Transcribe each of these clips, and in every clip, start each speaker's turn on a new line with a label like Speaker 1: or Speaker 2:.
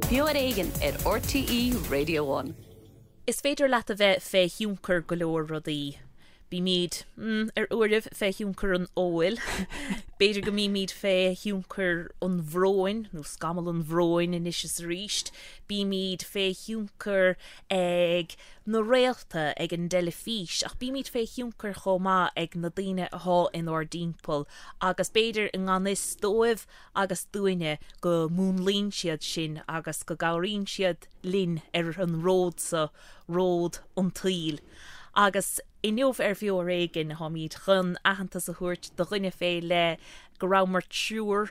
Speaker 1: Beo ar Éigean ar RTÉ Radio One.
Speaker 2: Is féidir leat a bheith fé thionchar go leor rudaí. Bímid, mm, ar uairibh fé thionchar an óil. B'fhéidir go mbímid fé thionchar an bhróin, nó scamall an bhróin anois is arís. Bímid fé thionchar ag na réalta, ag an dteilifís, ach bímid fé thionchar chomh maith ag na daoine athá inár dtimpeall agus b'fhéidir i ngan fhios dóibh agus dúinne go múnlaíonn siad sinn agus go gcabhraíonn siad linn ar an ród so, ród an tsaoil. Agus inniu ar Bheo Ar Éigean táimid chun aitheantas a thabhairt do dhuine fé leith go rabhamar triúr,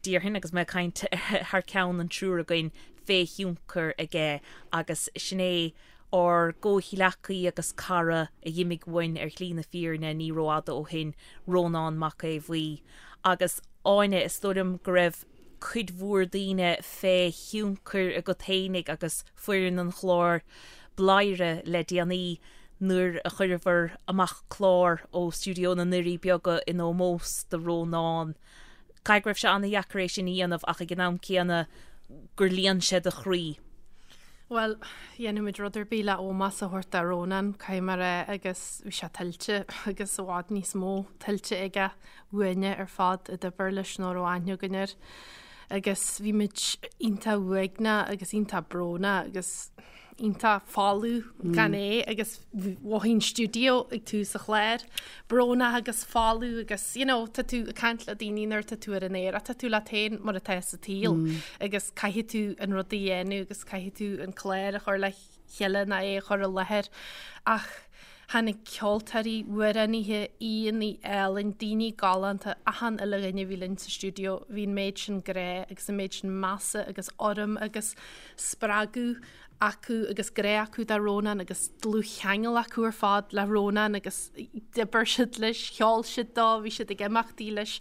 Speaker 2: déarfainn, agus mé ag caint thar ceann an triúr againn, fé thionchar aige agus sin é ár gcomhghleacaí agus cara a dh'imigh uainn ar shlí na fírinne ní rófhada ó shin, Rónán Mac Aodha Bhuí. Agus Áine, is dóigh liom go raibh cuid mhór daoine fé thionchar agat fhéinig agus foireann an chláir Bladhaire le déanaí nuair a chuireabhair amach clár ó stiúideo na nDoirí Beaga in ómós do Rónán. Caithfidh go raibh sé an-dheacair é sin a dhéanamh ach ag an am céanna gur líon sé do chroí.
Speaker 3: Bhuel, dhéanfadh muid rud ar bith le ómós a thabhairt do Rónán, caithfidh mé a rá, agus bhí sé tuillte agus i bhfad níos mó tuillte aige uainne ar fad a d'oibir leis nó a raibh aithne againn air. Agus bhí muid iontach uaigneach agus iontach brónach agus iontach folamh gan é agus mhothaigh an stiúideo ag tús an chláir brónach agus folamh agus you know, tá tú ag caint le daoine nuair tá tú ar an aer ach tá tú leat féin mar atá sa tsaol agus caithfidh tú an rud a dhéanamh agus caithfidh tú an clár a chur le chéile nó é a chur i láthair ach tháinig ceoltóirí, amhránaithe, aíonna álainn, daoine galánta, achan uile dhuine a bhí linn sa stiúideo, bhí an méid sin grá agus an méid sin measa agus urraim agus spreagadh acu agus grá acu do Rónán agus dlúthcheangal acu ar fad le Rónán agus d'oibir siad leis, cheol siad dó, bhí siad ag imeachtaí leis.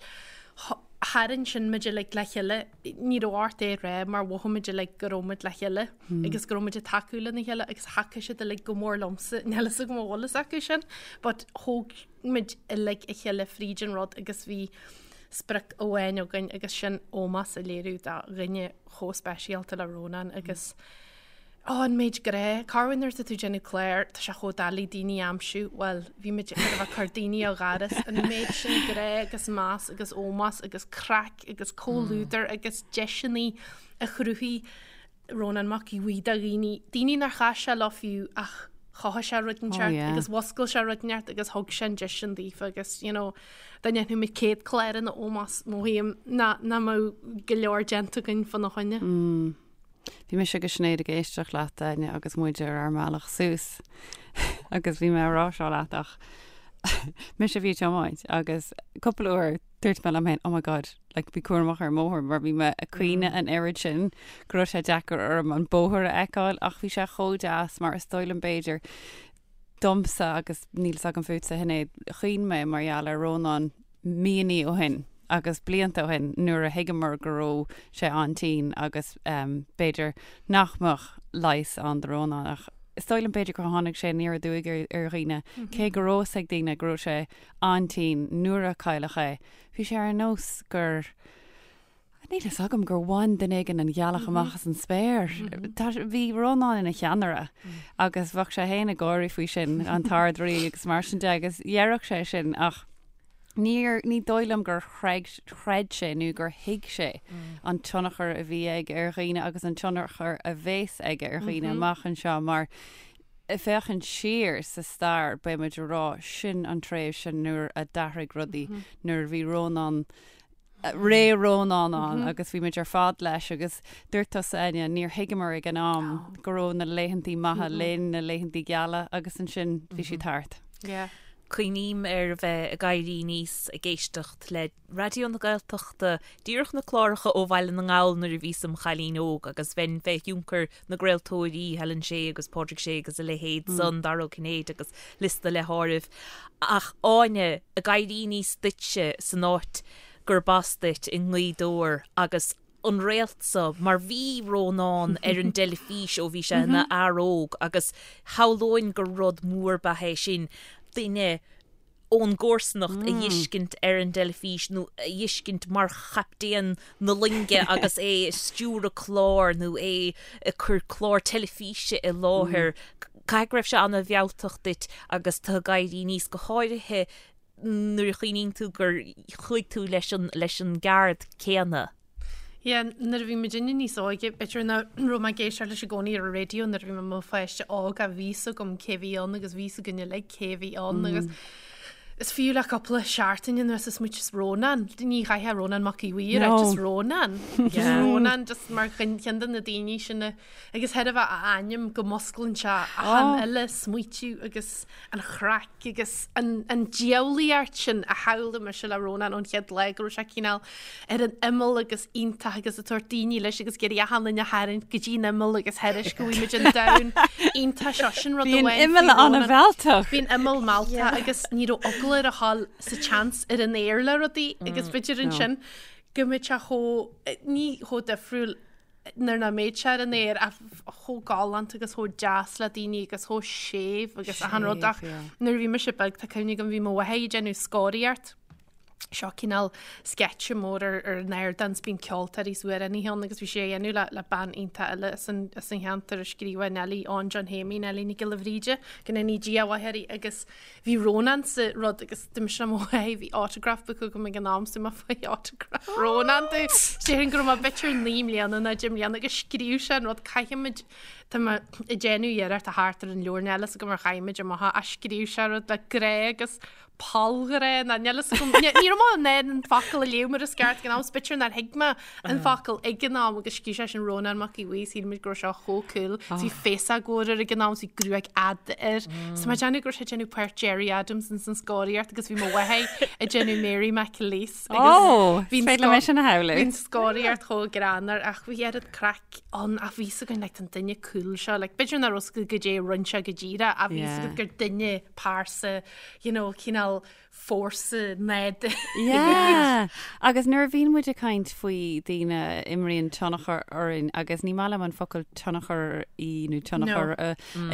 Speaker 3: Tharraing sin muid uilig le chéile, ní raibh ort é a rá mar mhothaigh muid uilig go raibh muid le chéile agus go raibh muid ag tacú lena chéile agus thacaigh siad uilig go mór liomsa, níl fhios agam an bhfuil fhios acu sin but thóg muid uilig a chéile fríd an rud agus bhí sprioc amháin againn agus sin ómós a léiriú do dhuine chomh speisialta le Rónán agus ó an méid grá, corruair nuair atá tú ag déanamh clár, tá sé chomh doiligh daoine a aimsiú, bhuel, bhí muid ag bheith ag cur daoine ó dhoras, an méid sin grá agus meas agus ómós agus craic agus comhluadar agus deiseanna a chruthaigh Rónán Mac Aodha Bhuí do dhaoine, daoine nár chas sé leo fiú ach chothaigh sé rud inteacht agus mhuscail sé rud inteacht agus thug sé an deis sin daofa agus you know, dá ndéanfadh muid 100 clár ina ómós mothaím nach mbeadh go leor déanta againn fána choinne.
Speaker 4: Mm. Bhí mise agus Sinéad ag éisteacht leat, Áine, agus muid ar ár mbealach suas agus bhí mé ag rá seo leat ach mise a bhí ag tiomáint agus cúpla uair dúirt mé liom féin, oh my god, like, bí cúramach ar an mbóthar mar bhí mé ag caoineadh an oiread sin go raibh sé deacair orm an bóthar a fheiceáil ach bhí sé chomh deas mar is dóigh liom b'fhéidir domsa agus níl fhios agam fútsa a Shinéad, chaoin mé mar gheall ar Rónán míonnaí ó shin agus blianta ó shin nuair a thuigeamar go raibh sé an-tinn agus um, b'fhéidir nach mbeadh leigheas ann do Rónán ach is dóigh liom b'fhéidir gur tháinig sé aniar aduaidh ar, ar dhaoine mm -hmm. cé go raibh fhios ag daoine go raibh sé an-tinn nuair a cailleadh é. Bhí sé ar nós gur Níl fhios agam gur bhain duine éigin an ghealach amach as an spéir. Bhí Rónán ina cheannaire agus bheadh sé féin ag gáirí faoi sin, an tArd-Rí agus mar sin de agus dhéarfadh sé sin ach níor, ní dóigh liom gur chreid sé nó gur thuig sé an tionchar a bhí aige ar dhaoine agus an tionchar a bheas aige ar dhaoine amach anseo mar ag féachaint siar sa stair beidh muid ag rá sin an tréimhse nuair a d'athraigh rudaí, nuair a bhí Rónán, ré Rónán ann agus bhí muid ar fad leis agus dúirt tusa Áine, níor thuigeamar ag an am go raibh na laethantaí maithe linn, na laethantaí geala agus ansin bhí siad thart.
Speaker 2: Yeah. Cuimhním ar a bheith ag éirí aníos ag éisteacht le Raidió na Gaeltachta, díreach na cláracha ó Bhaile na nGall nuair a bhíos im chailín óg agus bheinn fé thionchar na gcraoltóirí, Helen Shey agus Pádraig Sé agus a leithéid san, Dara Ó Cinnéide agus liosta le háireamh. Ach Áine, ag éirí aníos duitse san áit gurb as duit i nGaoth Dobhair agus an réalt so, mar bhí Rónán ar an dteilifís ó bhí sé ina fhear óg agus shamhlóinn gur rud mór ab ea é sin, duine. ón gcomharsanacht a dh'fheiscint ar an dteilifís nó a dh'fheiscint mar chaptaen na loinge agus é ag stiúradh clár nó é ag cur clár teilifíse i láthair. Caithfidh go raibh sé ana-mhealltach duit agus tú ag éirí aníos, go háirithe nuair a chuimhníonn tú gur chuaigh tú leis an leis an gceard céanna.
Speaker 3: Yeah, nuair a bhí muidinne níos óige, b'fhéidir nach raibh mé ag éisteacht leis i gcónaí ar an raidió nuair a bhí mé i mo pháiste óg ach bhí 'fhios agam cé bhí ann agus bhí 'fhios againn uilig cé bhí ann agus is fiú le cúpla seachtain anuas is muid just Rónán, ní chaithfeá Rónán Mac Aodha Bhuí a rá, just Rónán. Just Rónán, just mar cheann de na daoine sin a, agus thairbhe a ainm go musclaíonn sé achan uile smaoitiú agus an chraic agus an diabhlaíocht sin a shamhlaigh mise le Rónán ón chéad lá go raibh sé cineál ar an imeall agus iontach agus ag tabhairt daoine leis agus ag iarraidh achan duine a tharraingt go dtí an imeall agus thairis go bhfuil muid an domhan iontach seo sin rud
Speaker 4: Bhí an
Speaker 3: amháin
Speaker 4: imeall
Speaker 3: faoi Rónán.
Speaker 4: an-mhealltach.
Speaker 3: Bhí an imeall mealltach agus ní raibh eagla air a ghabháil sa tseans ar an aer le rudaí agus b'fhéidir ansin go mbeadh sé chomh ní chomh difriúil nuair nach mbeadh sé ar an aer ach chomh galánta agus chomh deas le daoine agus chomh séimh agus achan rud ach nuair a bhí mise beag tá cuimhne agam bhí mo mháthair ag déanamh scoraíocht seo cineál sceitse mór ar ar an ardán 's bíonn ceoltóirí is amhránaithe ann agus bhí sé á dhéanamh le le bean iontach eile as an as an cheantar a scríobhadh Neilí Eoin John Shéimí Neilí Nic Giolla Bhríde go ndéanaí Dia a mhaith uirthi agus Bhí Rónán sa rud agus d'imigh sé mo mhaith, bhí autograph book agam ag an am so mé faigh autograph Rónán domh. Déarfainn go raibh mé b'fhéidir 9 mbliana nó 10 mbliana agus scríobh sé an rud caithfimid tá mé ag déanamh iarracht a theacht ar an leabhar níl a fhios agam ar chaith amach é ach scríobh sé rud le grá agus pollghrá nó níl a fhios agam ní raibh mé in ann an focal a léamh mar is ceart ag an am 's b'fhéidir nár thuig mé an focal ag an am agus scríobh sé sin Rónán Mac Aodha Bhuí shíl muid go raibh sé chomh cool. Bhí féasóg mhór air ag an am, bhí gruaig fhada air. So mé ag déanamh go raibh sé ag déanamh páirt Gerry Adams ins an scoraíocht agus bhí mo mháthair ag déanamh Mary McAleese.
Speaker 4: Ó, is féidir liom é sin a shamhlú.
Speaker 3: Bhí an scoraíocht chomh greannmhar ach bhí oiread craic ann ach bhí 'fhios againn like an duine cool seo like b'fhéidir nach raibh 'fhios agat goidé a rinne sé go díreach ach bhí 'fhios agat gur duine pearsa you know cineál fórsa nádúrtha.
Speaker 4: Yeah! Agus nuair a bhíonn muid ag caint faoi daoine a imríonn tionchar orainn, agus ní maith liom an focal tionchar í nó tionchar a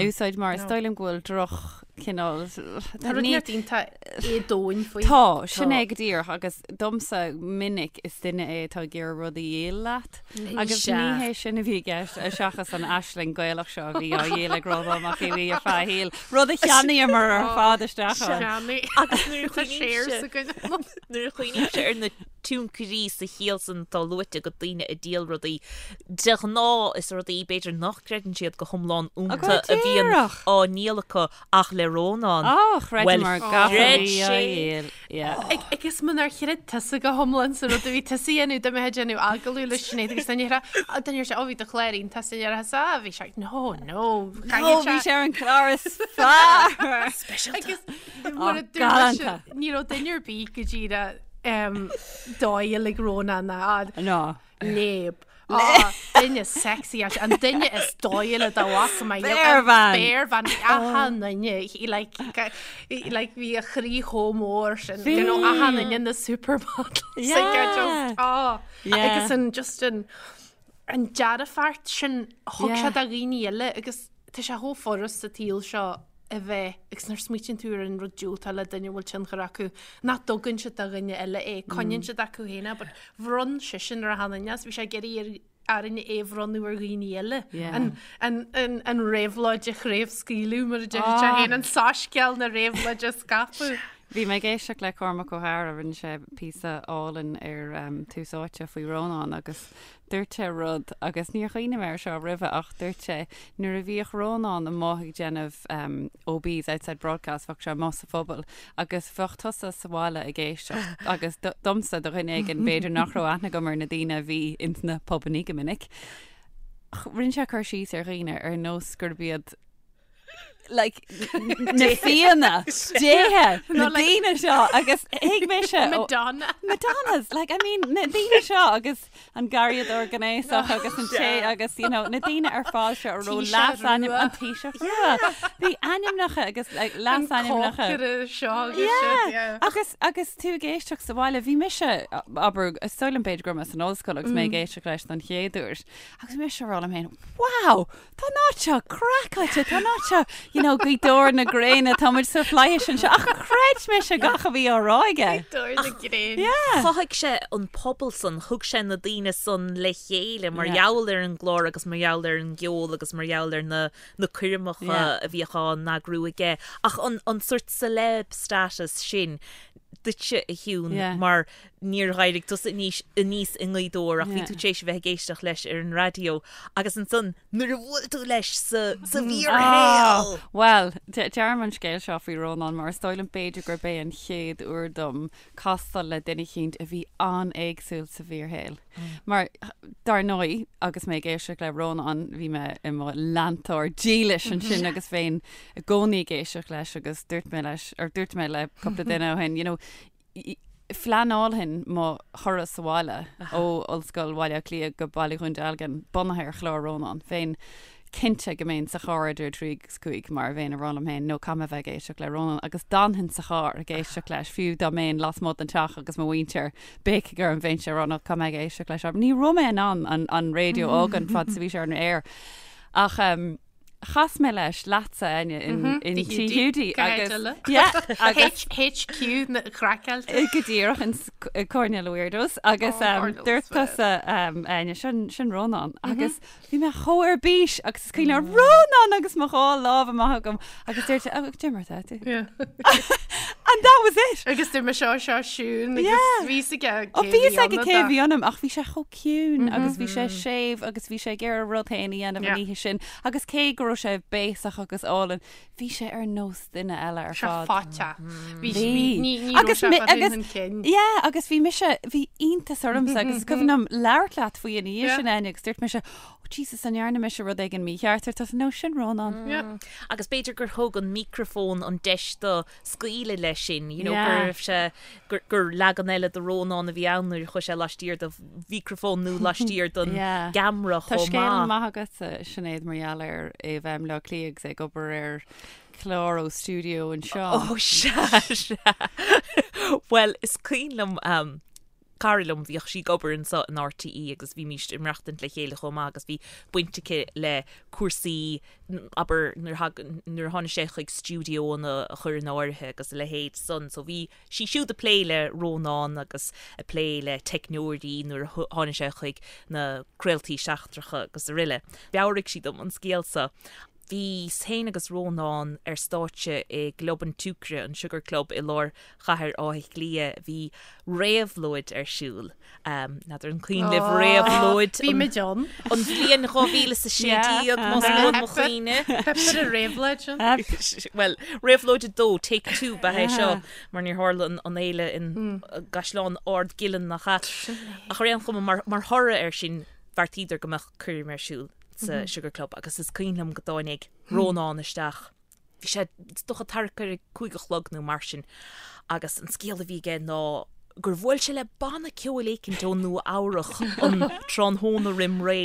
Speaker 4: úsáid mar is dóigh liom go bhfuil droch cineál
Speaker 3: Tá rud neart iontach éadomhain faoi.
Speaker 4: Tá, sin é go díreach agus domsa minic is duine é atá ag iarraidh rud a dhíol leat. Agus ní hé sin a bhí i gceist, seachas an aisling Gaelach seo a bhí á dhíol ag Rónán Mac Aodha Bhuí ar feadh a shaoil, rud a cheannaíomar ar fad isteach
Speaker 3: ann.
Speaker 2: Agus nuair a chuimhnímse ar na tionchairí sa chiall san atá luaite agat daoine ag díol rudaí, de ghnáth is rudaí b'fhéidir nach gcreideann siad go hiomlán iontu a bhíonn á ndíol acu ach le Rónán,
Speaker 4: Á, chreideamar gach a
Speaker 2: chreid
Speaker 4: bhí á
Speaker 2: sé.
Speaker 4: dhíol. Yeah.
Speaker 3: Agus munar chreid tusa go hiomlán sa rud a bhí tusa a dhéanamh, dá mbeifeá ag déanamh agallamh le Sinéad agus duine ar duine ar sé, ó bhí do chlár iontach sa deireadh, is ah, bhí sé, no, no,
Speaker 4: No, bhí sé ar an chlár is fearr.
Speaker 3: Agus mar a
Speaker 4: Ó,
Speaker 3: dúirt mise,
Speaker 4: galánta.
Speaker 3: ní raibh duine ar bith go díreach dóighiúil ag Rónán ná
Speaker 4: No.
Speaker 3: léab. Á, duine sexy as an duine is dóighiúla dá bhfaca mé.
Speaker 4: Spéirbhean!
Speaker 3: Spéirbhean, bhí achan duine, he like, he like bhí a chroí chomh mór sin,
Speaker 4: Bhí!
Speaker 3: you know, achan duine na supermodels.
Speaker 4: Yeah.
Speaker 3: Like, I just, á,
Speaker 4: Yeah.
Speaker 3: agus an just an, an dearfacht sin a thug
Speaker 4: Yeah.
Speaker 3: sé do dhaoine eile agus tá sé chomh furast sa tsaol seo a bheith, agus nuair a smaoitíonn tú ar an rud diúltach le duine a bhfuil tionchar acu, nach dtugann siad do dhuine eile é, coinníonn siad acu féin é, but bhronn seisean ar achan duine, is bhí sé ag iarraidh ar orainne é a bhronnadh ar dhaoine eile.
Speaker 4: Yeah.
Speaker 3: An, an, an, an réabhlóid a chraobhscaoileadh, mar a deir sé
Speaker 4: Ah.
Speaker 3: féin, an soiscéal na réabhlóide a scaipeadh.
Speaker 4: Bhí mé ag éisteacht le Cormac Ó hEadhra, rinne sé píosa álainn ar um, Tús Áite faoi Rónán agus Dúirt sé rud, agus níor chuimhnigh mé air seo roimhe, ach dúirt sé, nuair a bhíodh Rónán amuigh ag déanamh OBs, outside broadcast, bheadh sé amuigh sa phobal agus bheadh tusa sa bhaile ag éisteacht agus domsa, do dhuine éigin, b'fhéidir nach raibh aithne agam ar na daoine a bhí ins na pubannaí go minic, rinne sé cur síos ar dhaoine ar nós gurb iad like na fianna déithe na daoine seo agus thuig mise
Speaker 3: Madonna
Speaker 4: Madonnas like I mean na daoine seo agus an garraíodóir gnéasach agus an té agus you know na daoine ar fad seo a raibh leasainm an Taoiseach rua bhí ainmneacha agus like leasainmneacha
Speaker 3: seo agus
Speaker 4: yeah agus agus tú ag éisteacht sa bhaile bhí mise abair is dóigh liom b'fhéidir go raibh mé san ollscoil agus mé ag éisteacht leis don chéad uair agus bhí mise ag rá liom féin wow Tá an áit seo craiceáilte, tá an áit seo, you know, Gaoth Dobhair na gréine, tá muid sa fhlaithis anseo, ach chreid mise gach a bhí á rá aige.
Speaker 3: Gaoth Dobhair na gréine.
Speaker 4: Yeah.
Speaker 2: Chothaigh sé an pobal san, thug sé na daoine san le chéile mar
Speaker 4: Yeah.
Speaker 2: gheall ar an gclár agus mar gheall ar an gceol agus mar gheall ar na na coirmeacha
Speaker 4: Yeah.
Speaker 2: a bhíodh á n-eagrú aige. Ach an an sort celeb status sin duitse a Shiún
Speaker 4: Yeah.
Speaker 2: mar níor éirigh tusa aníos aníos i nGaoth Dobhair ach bhí
Speaker 4: Yeah.
Speaker 2: tú tar éis a bheith ag éisteacht leis ar an raidió agus ansan nuair a bhuail tú leis sa sa bhfíorshaol!
Speaker 4: Ah, Bhuel, de- deirim an scéal seo faoi Rónán mar is dóigh liom b'fhéidir gurb é an chéad uair dom castáil le duine eicínt a bhí an-éagsúil sa bhfíorshaol. Mar, dar ndóigh, agus mé ag éisteacht le Rónán, bhí mé i mo leantóir dílis ansin agus bheinn i gcónaí ag éisteacht leis agus dúirt mé leis, or dúirt mé le cúpla duine ó shin, you know, phleanáilfinn mo thuras abhaile ó Ollscoil Bhaile Átha Cliath go Baile Dhún Dealgan bunaithe ar chlár Rónán. Bheinn cinnte go mbeinn sa charr idir 3 agus 5 mar a bheinn ag rá liom féin, no caithfidh mé bheith ag éisteacht le Rónán agus d'fhanfainn sa charr ag éisteacht leis, fiú dá mbeinn lasmuigh den teach agus mo mhuintir béicigh orm bheinnse ag rá no caithfidh mé ag éisteacht leis. Ní raibh mé in ann an, an raidió a fhágaint fad is a bhí sé ar an aer. Ach um, chas mé leis leatsa Áine in, in Tigh Hiúdaí agus yeah,
Speaker 3: agus HQ na craiceáilte.
Speaker 4: Go díreach in Coirnéal na Weirdos agus
Speaker 3: Oh,
Speaker 4: um, dúirt tusa um, Áine sin, sin Rónán agus Bhí mé chomh ar bís agus is cuimhin liom Rónán agus mo dhá lámh amach agam agus dúirt sé, oh, cad é mar atá tú.
Speaker 3: Yeah.
Speaker 4: And that was it.
Speaker 3: Agus dúirt mé seo seo Siún agus
Speaker 4: Yeah.
Speaker 3: bhí a fhios aige
Speaker 4: Ó
Speaker 3: cé
Speaker 4: bhí
Speaker 3: bhí
Speaker 4: a fhios aige
Speaker 3: ionam
Speaker 4: cé
Speaker 3: dá.
Speaker 4: bhí ionam ach bhí sé chomh ciúin agus bhí sé séimh agus bhí sé ag iarraidh a rud féin a dhéanamh an
Speaker 3: Yeah.
Speaker 4: oíche sin agus cé go raibh sé béasach agus álainn, bhí sé ar nós duine eile ar
Speaker 3: Sé
Speaker 4: fad.
Speaker 3: fáite. Bhí
Speaker 4: Bhí.
Speaker 3: ní ní raibh
Speaker 4: Agus
Speaker 3: sé
Speaker 4: mi-
Speaker 3: fada
Speaker 4: agus-
Speaker 3: chun cinn.
Speaker 4: Yeah, agus bhí mise, bhí iontas ormsa agus is cuimhin liom labhairt leat faoi ina dhiaidh
Speaker 3: Yeah.
Speaker 4: sin Áine agus dúirt mise, oh Jesus, an ndearna mise rud éigin mícheart ar tusa, no, sin Rónán.
Speaker 3: Yeah.
Speaker 2: Agus b'fhéidir gur thug an micreafón an deis dó scaoileadh leis sin, you know,
Speaker 4: Yeah.
Speaker 2: go raibh sé, gur, gur leagan eile de Rónán a bhí ann nuair a chuaigh sé laistiar de mhicreafón nó laistiar den
Speaker 4: Yeah.
Speaker 2: gceamara
Speaker 4: Tá
Speaker 2: chomh
Speaker 4: scéal
Speaker 2: maith.
Speaker 4: maith agat, Sinéad, mar gheall ar é a bheith i mBleá Cliath agus é ag obair ar chlár ó stiúideo anseo.
Speaker 2: Ó sea, sea. Bhuel, is cuimhin liom, um, cara liom, bhíodh sí ag obair anseo in RTÉ agus bhímís ag maireachtaint le chéile chomh maith agus bhí baint aici le cúrsaí, abair, nuair a nuair a tháinig sé chuig stiúideoanna a chur in áirithe agus a leithéid san. So bhí sí siúd ag plé le Rónán agus ag plé le teicneoirí nuair a tháinig sé chuig na craoltaí seachtracha agus araile. Mheabhraigh sí dom an scéal seo. Bhíos féin agus Rónán ar stáitse i gClub an tSiúcra, an Sugar Club, i lár chathair Átha Cliath. Bhí réabhlóid ar siúl. N'fheadar an cuimhin libh réabhlóid
Speaker 3: Bhí muid ann.
Speaker 2: an bhliain 2016, más buan mo chuimhne.
Speaker 3: Theip ar an réabhlóid sin.
Speaker 2: Bhuel, réabhlóid 2, take 2 ba é seo, mar níor tharla an fhéile in gCaisleán Ard Giolláin nach ea. Ach ar aon chuma, mar thoradh air sin, bheartaíodar go mbeadh coirm ar siúl. sa Sugar Club agus is cuimhin liom go dtáinig Rónán isteach. Bhí sé is dócha thart ar a 5 a chlog nó mar sin agus an scéal a bhí aige ná gur bhuail sé le banna ceoil éicint ó Nua Eabhrach an tráthnóna roim ré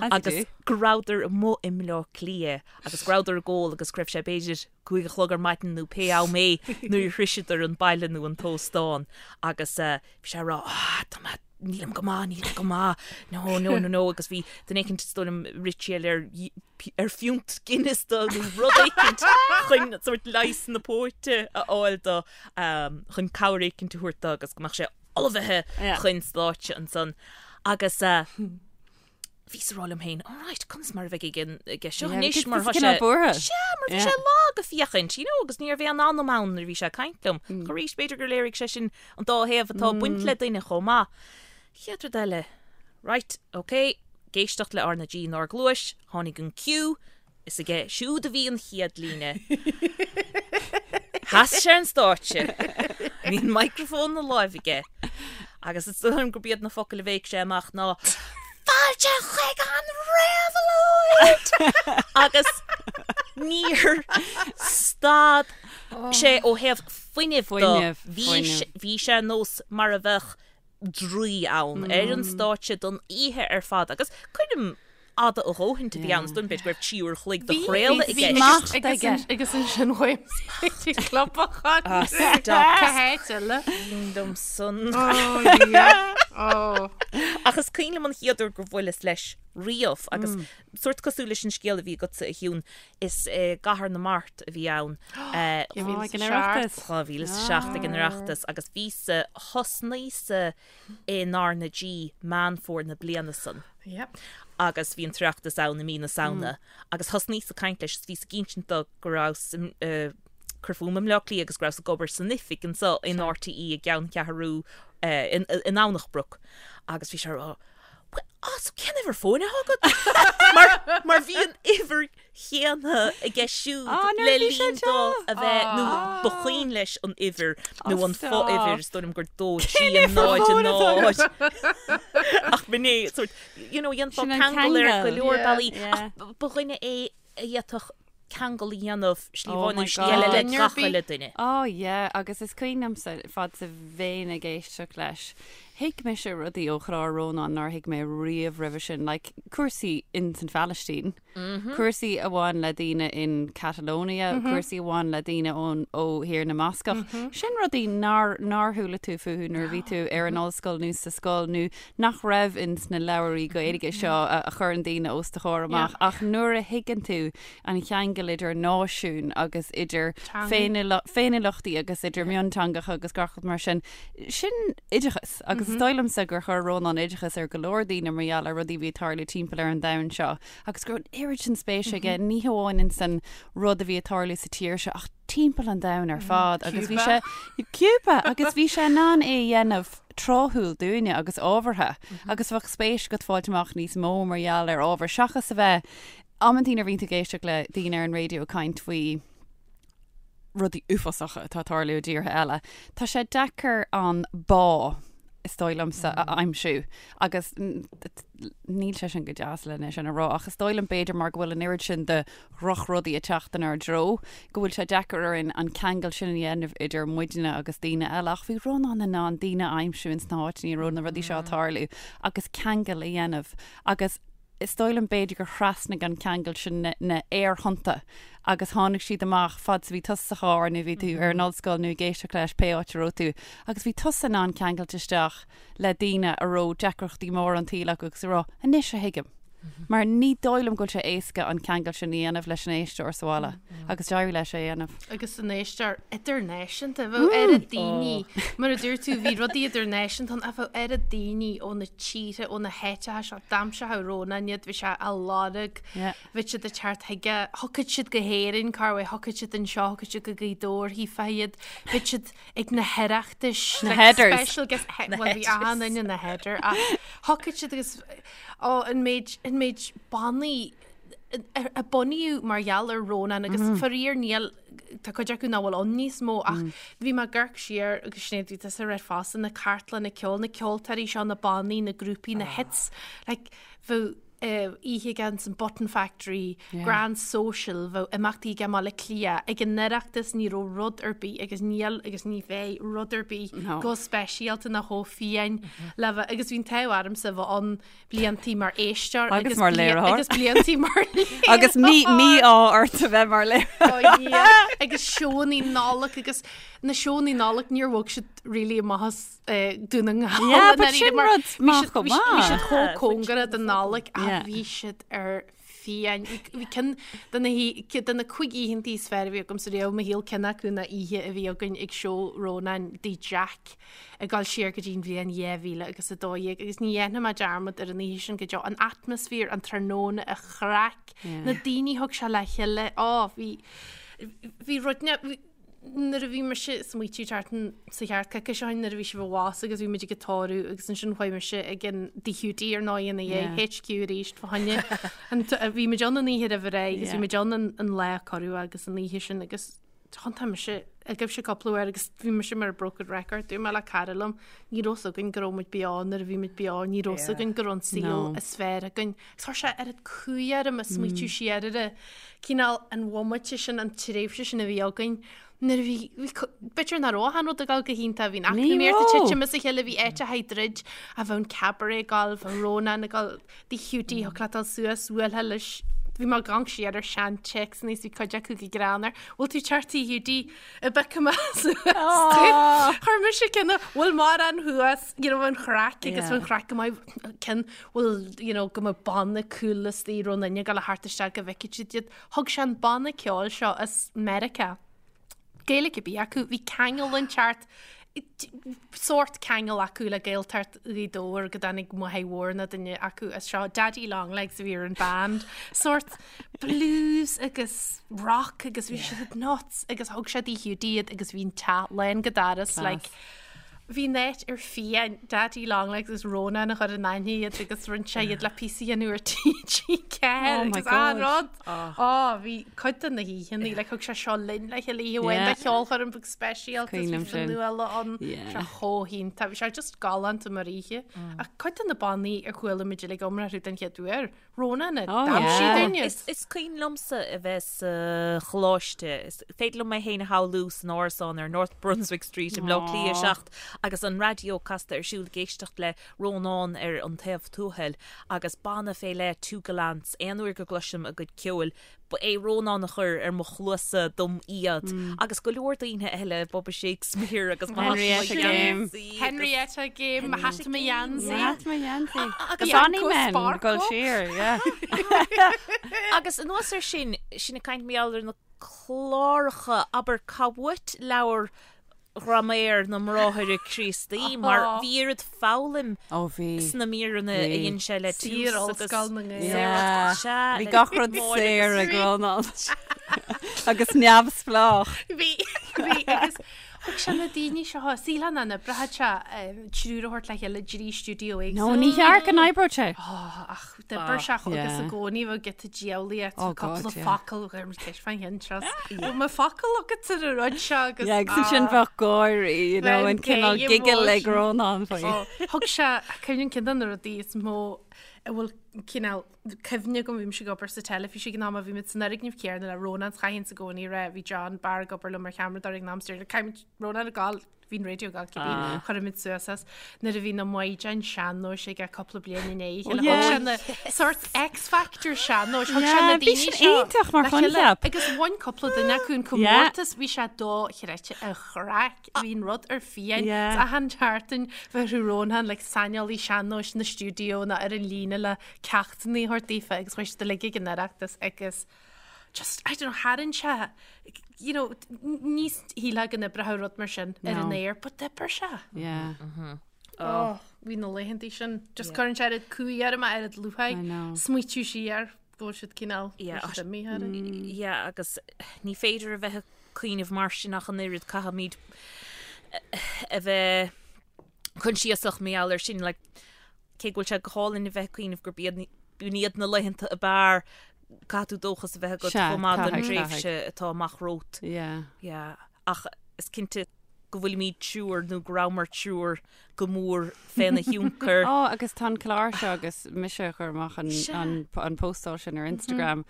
Speaker 2: agus go rabhadar amuigh i mBleá Cliath agus go rabhadar ag ól agus go raibh sé b'fhéidir 5 a chlog ar maidin nó pé am é nuair a shroiseadar an baile nó an t-óstán agus bhí sé ag rá ah tá mé nílim go maith, nílim go maith, no, no, no, no, agus bhí duine éicint is dóigh liom rith siad ar ar phiúnt Guinness dó nó rud éicint chun sórt leigheas na póite a fháil dó chun cabhair éicint a thabhairt dó agus go mbeadh sé ullmhaithe chun stáitse ansan. Agus bhíos ag rá liom féin, all right, conas mar a bheidh ag an aige seo anois mar tá sé
Speaker 4: buartha.
Speaker 2: Sea, mar bhí sé lag ag féachaint, you know, agus ní raibh aon anam ann nuair a bhí sé ag caint liom. Ach arís, b'fhéidir gur léirigh sé sin an dá thaobh atá ag baint le duine chomh maith. Chéad rud eile, right, ok, ag éisteacht le R na G inár gcluais, tháinig an cue, Is aige siúd a bhí an chéad líne. Sheas sé ar an stáitse. Bhí an microphone ina láimh aige. Agus is dóigh liom gurb iad na focail a bhéic sé amach ná Fáilte chuig an réabhlóid! Agus níor stad sé ó thaobh fuinnimh de.
Speaker 4: Fuinneamh,
Speaker 2: Bhí
Speaker 4: fuinneamh.
Speaker 2: bhí sé ar nós mar a bheadh draoi ann ar an stáitse don oíche ar fad agus coirm fhada a dhóthaint a bhí ann, is dóigh liom b'fhéidir go raibh 3 uair a chloig de chraoladh i gceist.
Speaker 4: Smacht aige.
Speaker 3: Agus ansin chuaigh mé club a chun.
Speaker 2: Ah, stop.
Speaker 3: Cá háit eile?
Speaker 2: Bím dom san.
Speaker 3: Oh, yeah. Oh.
Speaker 2: Ach is cuimhin liom an chéad uair gur bhuaileas leis riamh agus sórt cosúil leis an scéal a bhí agatsa a Shiún, is i gCathair na Mart a bhí ann
Speaker 4: Ag an Oireachtas.
Speaker 2: 2007 ag an Oireachtas agus bhíos-sa, thosnaíos-sa in R na G Meán Fómhair na bliana san.
Speaker 3: Yep.
Speaker 2: Agus bhí an tOireachtas ann i mí na Samhna agus thosnaíos ag caint leis is bhíos ag insint dó go rabhas cur fúm i mBleá Cliath agus go rabhas ag obair san oifig anseo in RTÉ i gceanncheathrú i nDomhnach Broc agus bhí sé ag rá Bhuel, ah, so cén uimhir fóin atá agat? Mar, mar bhí an uimhir chéanna aige siúd
Speaker 4: Ah, nuair
Speaker 2: le
Speaker 4: a bhí sé
Speaker 2: linn dó
Speaker 4: anseo.
Speaker 2: a bheith, nó ba chuimhin leis an uimhir nó
Speaker 4: Ah,
Speaker 2: an
Speaker 4: stop.
Speaker 2: fo-uimhir, is dóigh liom gur 2 3
Speaker 4: Cén uimhir
Speaker 2: 0
Speaker 4: fóin atá
Speaker 2: 0. Ach b'in é, sort, you know, dhéanfá
Speaker 4: Sin an
Speaker 2: ceangal ar go
Speaker 4: ceangal.
Speaker 2: leor
Speaker 3: Yeah.
Speaker 2: bealaí,
Speaker 4: Yeah.
Speaker 2: ach ba dhuine é a d'fhéadfadh ceangal a dhéanamh slí
Speaker 4: Oh
Speaker 2: amháin
Speaker 4: my
Speaker 2: nó slí eile le
Speaker 3: God.
Speaker 2: gach uile duine.
Speaker 4: Oh yeah, agus is cuimhin liomsa fad is a bheinn ag éisteacht leis, thuig mise rudaí ó chlár Rónáin nár thuig mé riamh roimhe sin, like cúrsaí in san Phalaistín, cúrsaí a bhain le daoine in Catalonia, cúrsaí a bhain le daoine ón ó Thír na mBascach. Sin rudaí nár nár chuala tú fúthu nuair a bhí tú ar an ollscoil nó sa scoil nó nach raibh ins na leabhairí Gaeilge seo a chuireann daoine os do chomhair amach ach nuair a thuigeann tú an cheangal idir náisiúin agus idir féiniúlachtaí agus idir mionteangacha agus gach rud mar sin, sin oideachas agus is dóigh liomsa gur chuir Rónán oideachas ar go leor daoine mar gheall ar rudaí a bhí ag tarlú timpeall ar an domhan seo agus go raibh an oiread sin spéise aige ní hamháin ins an rud a bhí ag tarlú sa tír seo ach timpeall an domhain ar fad agus bhí sé Cúba agus bhí sé in ann é a dhéanamh tráthúil dúinne agus ábhartha agus bheadh spéis agat fáilt amach níos mó mar gheall ar ábhar seachas a bheith amantaí nuair a bhíonn tú ag éisteacht le daoine ar an raidió ag caint faoi rudaí uafásacha atá ag tarlú i dtíortha eile. Tá sé deacair an bá is dóigh liomsa a aimsiú agus níl sé sin go deas lena sin a rá ach is dóigh liom b'fhéidir mar go bhfuil an oiread sin de dhrochrudaí ag teacht inár dtreo, go bhfuil sé deacair orainn an ceangal sin a dhéanamh idir muidne agus daoine eile. Ach bhí Rónán in ann daoine a aimsiú ins na háiteanna a raibh na rudaí seo ag tarlú agus ceangal a dhéanamh agus is dóigh liom b'fhéidir gur thrasnaigh an ceangal sin na, na aerthonnta agus tháinig siad amach fad is a bhí tusa sa charr nó bhí tú ar an ollscoil nó ag éisteacht leis pé áit a raibh tú agus bhí tusa in ann ceangailt isteach le daoine a raibh deacrachtaí móra an tsaoil acu agus a rá anois a thuigim. Mar ní dóigh liom go bhfuil sé éasca an ceangal sin a dhéanamh leis an éisteoir sa bhaile agus d'éirigh leis é a dhéanamh.
Speaker 3: Agus an éisteoir idirnáisiúnta, bheadh oiread daoine, mar a dúirt tú, bhí rudaí idirnáisiúnta ann ach bheadh oiread daoine ó na tíortha, ó na háiteacha seo, d'aimseodh Rónán iad, bhí sé á lorg, bhí siad ag teacht chuige, thiocfadh siad go hÉirinn, corruair, thiocfadh siad anseo, thiocfadh siad go Gaoth Dobhair, chífeá iad, bhí siad ag na hOireachtais,
Speaker 4: Na headers.
Speaker 3: special guest, bhuel bhí achan duine ina header ach thiocfadh siad agus Ó, an méid, an méid bannaí a bunaíodh mar gheall ar Rónán agus faraor níl, tá cuid acu nach bhfuil ann níos mó ach bhí mé ag amharc siar agus Sinéad bhí tusa ag rá fosta, na cartlanna ceoil, na ceoltóirí seo, na bannaí, na grúpaí, na hits, like bheadh oíche aige ins an Button Factory, Grand Social, bheadh imeachtaí aige i mBaile Átha Cliath, ag an Oireachtas ní raibh rud ar bith agus níl agus ní bheidh rud ar bith chomh speisialta ná chomh fiáin le bheith agus bhí an t-ádh ormsa bheith ann bliantaí mar éisteoir
Speaker 4: Agus mar léiritheoir.
Speaker 3: agus bliantaí mar léiritheoir.
Speaker 4: Agus mí-ádh ort a bheith mar léiritheoir.
Speaker 3: Oh yeah. Agus seónnaí Nollag agus na seónnaí Nollag níor bhog siad really amach as eh, Dún na nGall.
Speaker 4: Yeah,
Speaker 3: i
Speaker 4: but
Speaker 3: ndáiríre,
Speaker 4: sin
Speaker 3: mar
Speaker 4: rud
Speaker 3: bhí
Speaker 4: maith
Speaker 3: siad-
Speaker 4: chomh
Speaker 3: bhí siad- Bhí siad
Speaker 4: maith.
Speaker 3: chomh
Speaker 2: Yeah,
Speaker 3: cóngarach don Nollaig ach
Speaker 4: Yeah.
Speaker 3: bhí siad ar fiáin. Bhí ceann de na de na cuig oícheantaí is fearr a bhí agamsa riamh i mo shaol ceann acu ná oíche a bhí againn ag seó Rónáin dTigh Jack ag dul siar go dtí an bhliain 2000 agus 12 agus ní dhéanfaidh mé dearmad ar an oíche sin go deo. An atmaisféar, an tráthnóna, an chraic, na daoine a thug sé le chéile, á bhí bhí rud nuair a bhí mise ag smaoitiú thart sa cheart coicís ó shin nuair a bhí sibh i bhfás agus bhí muid ag an tórramh agus ansin chuaigh mise ag an Tigh Hiúdaí ar ndóigh ina dhiaidh, HQ arís fá choinne an bhí muid ann an oíche roimh ré agus bhí muid ann an lá a cuireadh agus an oíche sin agus thiontaigh mise agaibhse cúpla uair agus bhí mise mar broken record dúirt mé le cara liom ní raibh 's againn go raibh muid beo nuair a bhí muid beo ní raibh 's againn go raibh an saol is fearr againn Agus chuir sé oiread cumha orm ag smaoitiú siar ar an cineál an bhomaite sin, an tréimhse sin a bhí againn nuair a bhí, bhí, b'fhéidir nach raibh achan rud ag dul go hiontach, bhí an eacnamaíocht ag titim as a chéile, bhí áiteacha ag druid, ach bheadh an cabaret ag dul, bheadh Rónán ag dul, Tigh Hiúdaí, thiocfadh leat dul suas, bhuailfeá leis. Bhí mé ag amharc siar ar sean téacsanna is bhí cuid acu go greannmhar. Bhfuil tú teacht tigh Hiúdaí a bheith thuas? Chuir mise ceann bhfuil mórán thuas, you know, an chraic agus an chraic go maith ceann bhfuil, you know, go mbeadh banna cool istigh raibh an duine ag dul a theacht isteach go bhfeicfidh siad iad. Thug sé an banna ceoil seo as Meiriceá. Gaeilge ar bith acu, bhí ceangal inteacht, sórt ceangal acu le Gaeltacht Ghaoth Dobhair go dtáinig Máthair Mhór nó duine acu as seo, Daddy Long Legs a bhí ar an band, sórt blues agus rock agus bhí siad nuts agus thug sé tigh Hiúdaí iad agus bhí an teach lán go doras like Bhí an áit ar fiáin, Daddy Long Legs agus Rónán a chuir in aithne iad agus rinne sé iad le píosa a dhéanamh ar TG4
Speaker 4: Oh my
Speaker 3: agus an
Speaker 4: God.
Speaker 3: rud. Ó, bhí cuid de na hoícheanna, like thug sé seo linn le chéile oíche amháin
Speaker 4: Yeah.
Speaker 3: de cheolchoirm beag speisialta
Speaker 4: Cuimhin
Speaker 3: is bhí
Speaker 4: liom sin.
Speaker 3: Fionnuala ann.
Speaker 4: Yeah.
Speaker 3: Sé chomh hiontach, bhí sé just galánta mar oíche. Ach cuid de na bannaí a chuala muid uilig iomrá orthu den chéad uair, Rónán a
Speaker 4: Oh,
Speaker 3: d'aimsigh
Speaker 4: yeah.
Speaker 3: dúinn.
Speaker 2: Is, is cuimhin liomsa a bheith sa choláiste. Is féidir liom mé féin a shamhlú san árasán ar North Brunswick Street i mBleá Cliath 7 agus an raidió casta ar siúl ag éisteacht le Rónán ar An Taobh Tuathail agus banna fé leith Two Gallants. Aon uair go gcloisim a gcuid ceoil Ba é Rónán a chuir ar mo chluasa dom iad agus go leor daoine eile, Bubba Shakespeare agus mo
Speaker 4: Henrietta Game.
Speaker 3: Henrietta Game, mo hata mo gheansaí.
Speaker 4: Mo hata mo gheansaí.
Speaker 2: Agus
Speaker 4: Bonny
Speaker 3: Bianco
Speaker 4: Men,
Speaker 3: Sparkle.
Speaker 4: gul siar, yeah.
Speaker 2: Agus anuas air sin, sinn ag caint mar gheall ar na cláracha, abair, cá uait leabhar Ghraiméar na mBráithre Críostaí mar bhí oiread foghlaim
Speaker 4: Ó bhí.
Speaker 2: sna míreanna a
Speaker 4: Bhí.
Speaker 2: dhein sé le Tús
Speaker 3: Saor
Speaker 2: agus
Speaker 3: Ollscoil na nGael.
Speaker 4: Yeah.
Speaker 2: Sea,
Speaker 4: Bhí
Speaker 2: le
Speaker 4: gach rud
Speaker 2: Máire
Speaker 4: saor
Speaker 2: agus
Speaker 4: ag Rónán. Agus neamhspleách.
Speaker 3: Bhí, bhí, agus thug sé na daoine seo, síleann na n-oibreoidh sé triúr a thabhairt le chéile i dtrí stiúideo
Speaker 4: No,
Speaker 3: éagsúla.
Speaker 4: ní cheart go n-oibreodh sé.
Speaker 3: Ó, ach D'oibir sé agus
Speaker 4: Yeah.
Speaker 3: i gcónaí bheadh giota diabhlaíocht,
Speaker 4: Oh
Speaker 3: cúpla
Speaker 4: God, yeah.
Speaker 3: focal, chuir muid ceist fán cheann seo. Bhfuil mo focal agat ar an rud seo agus
Speaker 4: Yeah, agus ansin bheadh gáirí, you know,
Speaker 3: Bheadh
Speaker 4: an cineál
Speaker 3: gay
Speaker 4: giggle ag
Speaker 3: emotion.
Speaker 4: Rónán faoi.
Speaker 3: Ó, Thug sé, cuimhním ceann de na rudaí is mó a bhfuil cineál cuimhne agam, bhí mise ag obair sa teilifís ag an am a bhí muid san fhoirgneamh céanna le Rónán, 's chaithfinn i gcónaí a rá, bhí John Barr ag obair liom mar cheamaradóir ag an am, 's deir, caithfimid Rónán ag gabháil Bhí an raidió ag gabháil cibé, chuir muid suas as nuair a bhí na maighdeáin sean-nóis aige cúpla bliain i ndiaidh a chéile. Thug sé na sort X Factor sean-nóis, thug sé na
Speaker 4: Yeah, bhí
Speaker 3: daoine
Speaker 4: sin
Speaker 3: seo
Speaker 4: iontach mar
Speaker 3: le chéile.
Speaker 4: choincheap.
Speaker 3: Agus bhain cúpla duine acu an comórtas, bhí sé dochreidte an chraic, bhí an rud ar fiáin.
Speaker 4: Yeah.
Speaker 3: 'S achan tseachtain bheadh Rónán like saineolaí sean-nóis na stiúideo nó ar an líne le ceachtanna a thabhairt daofa agus chuaigh siad uilig ag an Oireachtas agus just, I don't know, tharraing sé, you know, ní shílfeá go n-oibreodh rud mar sin ar an aer, but d'oibir sé.
Speaker 4: Yeah.
Speaker 3: Oh, bhí na laethantaí sin. Just cuireann sé oiread cumha orm, oiread lúcháir,
Speaker 4: I know.
Speaker 3: smaoitiú siar go bhfuil siad cineál,
Speaker 2: Yeah,
Speaker 3: go bhfuil siad imithe orainn.
Speaker 2: Yeah, agus ní féidir a bheith ag cuimhneamh mar sin ach an oiread caithfimid a bheith coinsiasach mar gheall air sin, like, cé go bhfuil sé go hálainn a bheith ag cuimhneamh gurb iad b'in iad na laethanta ab fhearr, caithfidh tú dóchas a bheith agat
Speaker 4: Sea,
Speaker 2: chomh maith don
Speaker 4: caithfidh,
Speaker 2: tréimhse atá amach romhat.
Speaker 4: Yeah.
Speaker 2: Yeah. Ach is cinnte go bhfuilimid triúr nó go rabhamar triúr go mór féna thionchar.
Speaker 4: Ó, agus tá an clár seo agus mise a chuir amach an,
Speaker 2: Sea.
Speaker 4: an, an postáil sin ar Instagram.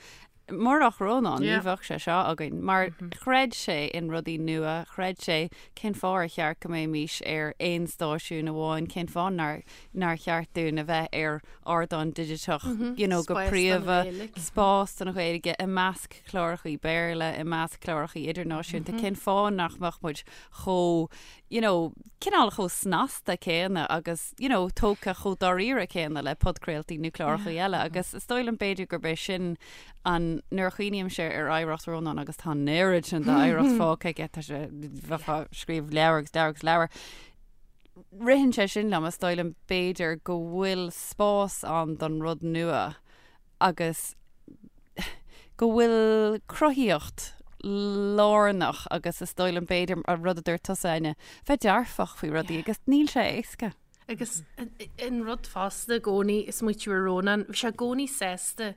Speaker 4: Murach Rónán, ní
Speaker 3: Yeah.
Speaker 4: bheadh sé seo againn, mar chreid sé in rudaí nua, chreid sé cén fáth ar cheart go mbeimis ar aon stáisiún amháin, cén fáth nár, nár cheart dúinn a bheith ar ardán digiteach, you know, go
Speaker 3: Spás don
Speaker 4: príomha,
Speaker 3: Ghaeilge.
Speaker 4: spás don Ghaeilge i measc clárachaí Béarla, i measc clárachaí idirnáisiúnta, cén fáth nach mbeadh muid chomh, you know, cineál chomh snasta céanna agus, you know, tógtha chomh dáiríre céanna le podchraoltaí nó clárachaí eile agus is dóigh liom b'fhéidir gurb é sin an, nuair a chuimhnímse ar oidhreacht Rónáin agus tá an oiread sin d'oidhreacht fágtha aige, tá sé, bheifeá ag scríobh leabhar agus leabhar agus leabhar. Ritheann sé sin liom, is dóigh liom b'fhéidir go bhfuil spás ann don rud nua agus go bhfuil cruthaíocht lárnach agus is dóigh liom b'fhéidir an rud a dúirt tusa, Áine, bheith dearfach faoi rudaí agus níl sé éasca.
Speaker 3: Agus an rud fosta i gcónaí ag smaoitiú ar Rónán, bhí sé i gcónaí sásta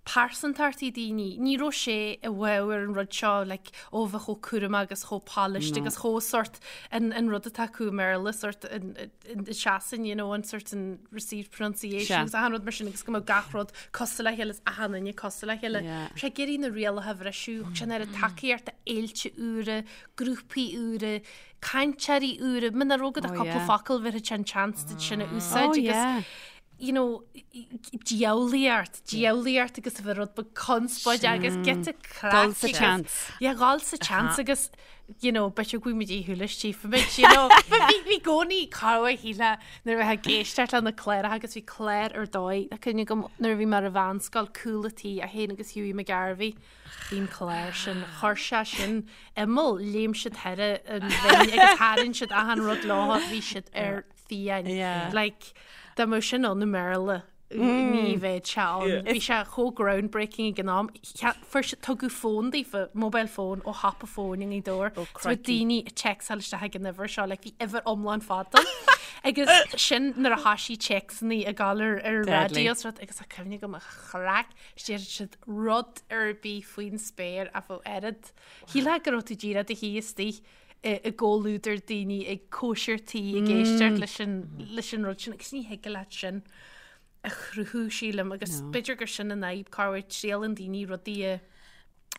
Speaker 3: pearsantachtaí daoine, ní raibh sé i bhfabhar an rud seo like ó bheith chomh cúramach agus chomh polished agus chomh sort an an rud atá acu i mBéarla sort an an seasann you know an sort an received pronunciation agus achan rud mar sin agus go mbeadh gach rud cosúil le chéile is achan duine cosúil le chéile. Bhí sé ag iarraidh na rialacha a bhriseadh, thug sé an oiread tacaíocht d'fhéilte úra, grúpaí úra, cainteoirí úra, muna raibh agat ach cúpla focal bhéarfadh sé an chance duit sin a úsáid agus. you know, diabhlaíocht, diabhlaíocht agus a bheith rud beag conspóideach agus giota craic.
Speaker 4: Dul sa tseans.
Speaker 3: Yeah, dhul sa tseans agus, you know, b'fhéidir go bhfuil muid éagsúil tchífimid, you know. But bhí bhí i gcónaí cabhair shíle nuair a bheith ag éisteacht le na cláracha agus bhí clár ar dóigh, tá cuimhne agam nuair a bhí mé ar an mheánscoil, Cúl a' Tí, é féin agus Hughie McGarvey, bhí an clár sin, chuir sé sin imeall, léim siad thar an bhinn agus tharraing siad achan rud leo, bhí siad ar fiáin.
Speaker 4: Yeah.
Speaker 3: Like, dá mbeadh sin ann i mBéarla, ní bheadh sé ann. Bhí sé chomh groundbreaking ag an am. Fuair siad, tugadh fón daofa, mobile phone, ó shiopa fóin i nGaoth Dobhair.
Speaker 2: Oh,
Speaker 3: So bhí
Speaker 2: crikey.
Speaker 3: daoine ag téacsáil isteach ag an uimhir seo, like, bhí uimhir iomlán fada. Agus sin nuair a thoisigh téacsanna ag gabháil ar ar
Speaker 4: Deadly.
Speaker 3: raidió is rud, agus tá cuimhne agam an chraic, déarfadh siad rud ar bith faoin spéir ach bheadh oiread. Shílfeá go raibh tú díreach i do shuí istigh i gcomhluadar daoine ag cóisir tí ag éisteacht leis an leis an rud sin agus ní thig leat sin a chruthú sílim agus b'fhéidir gur sin an fhadhb corruair triaileann daoine rudaí a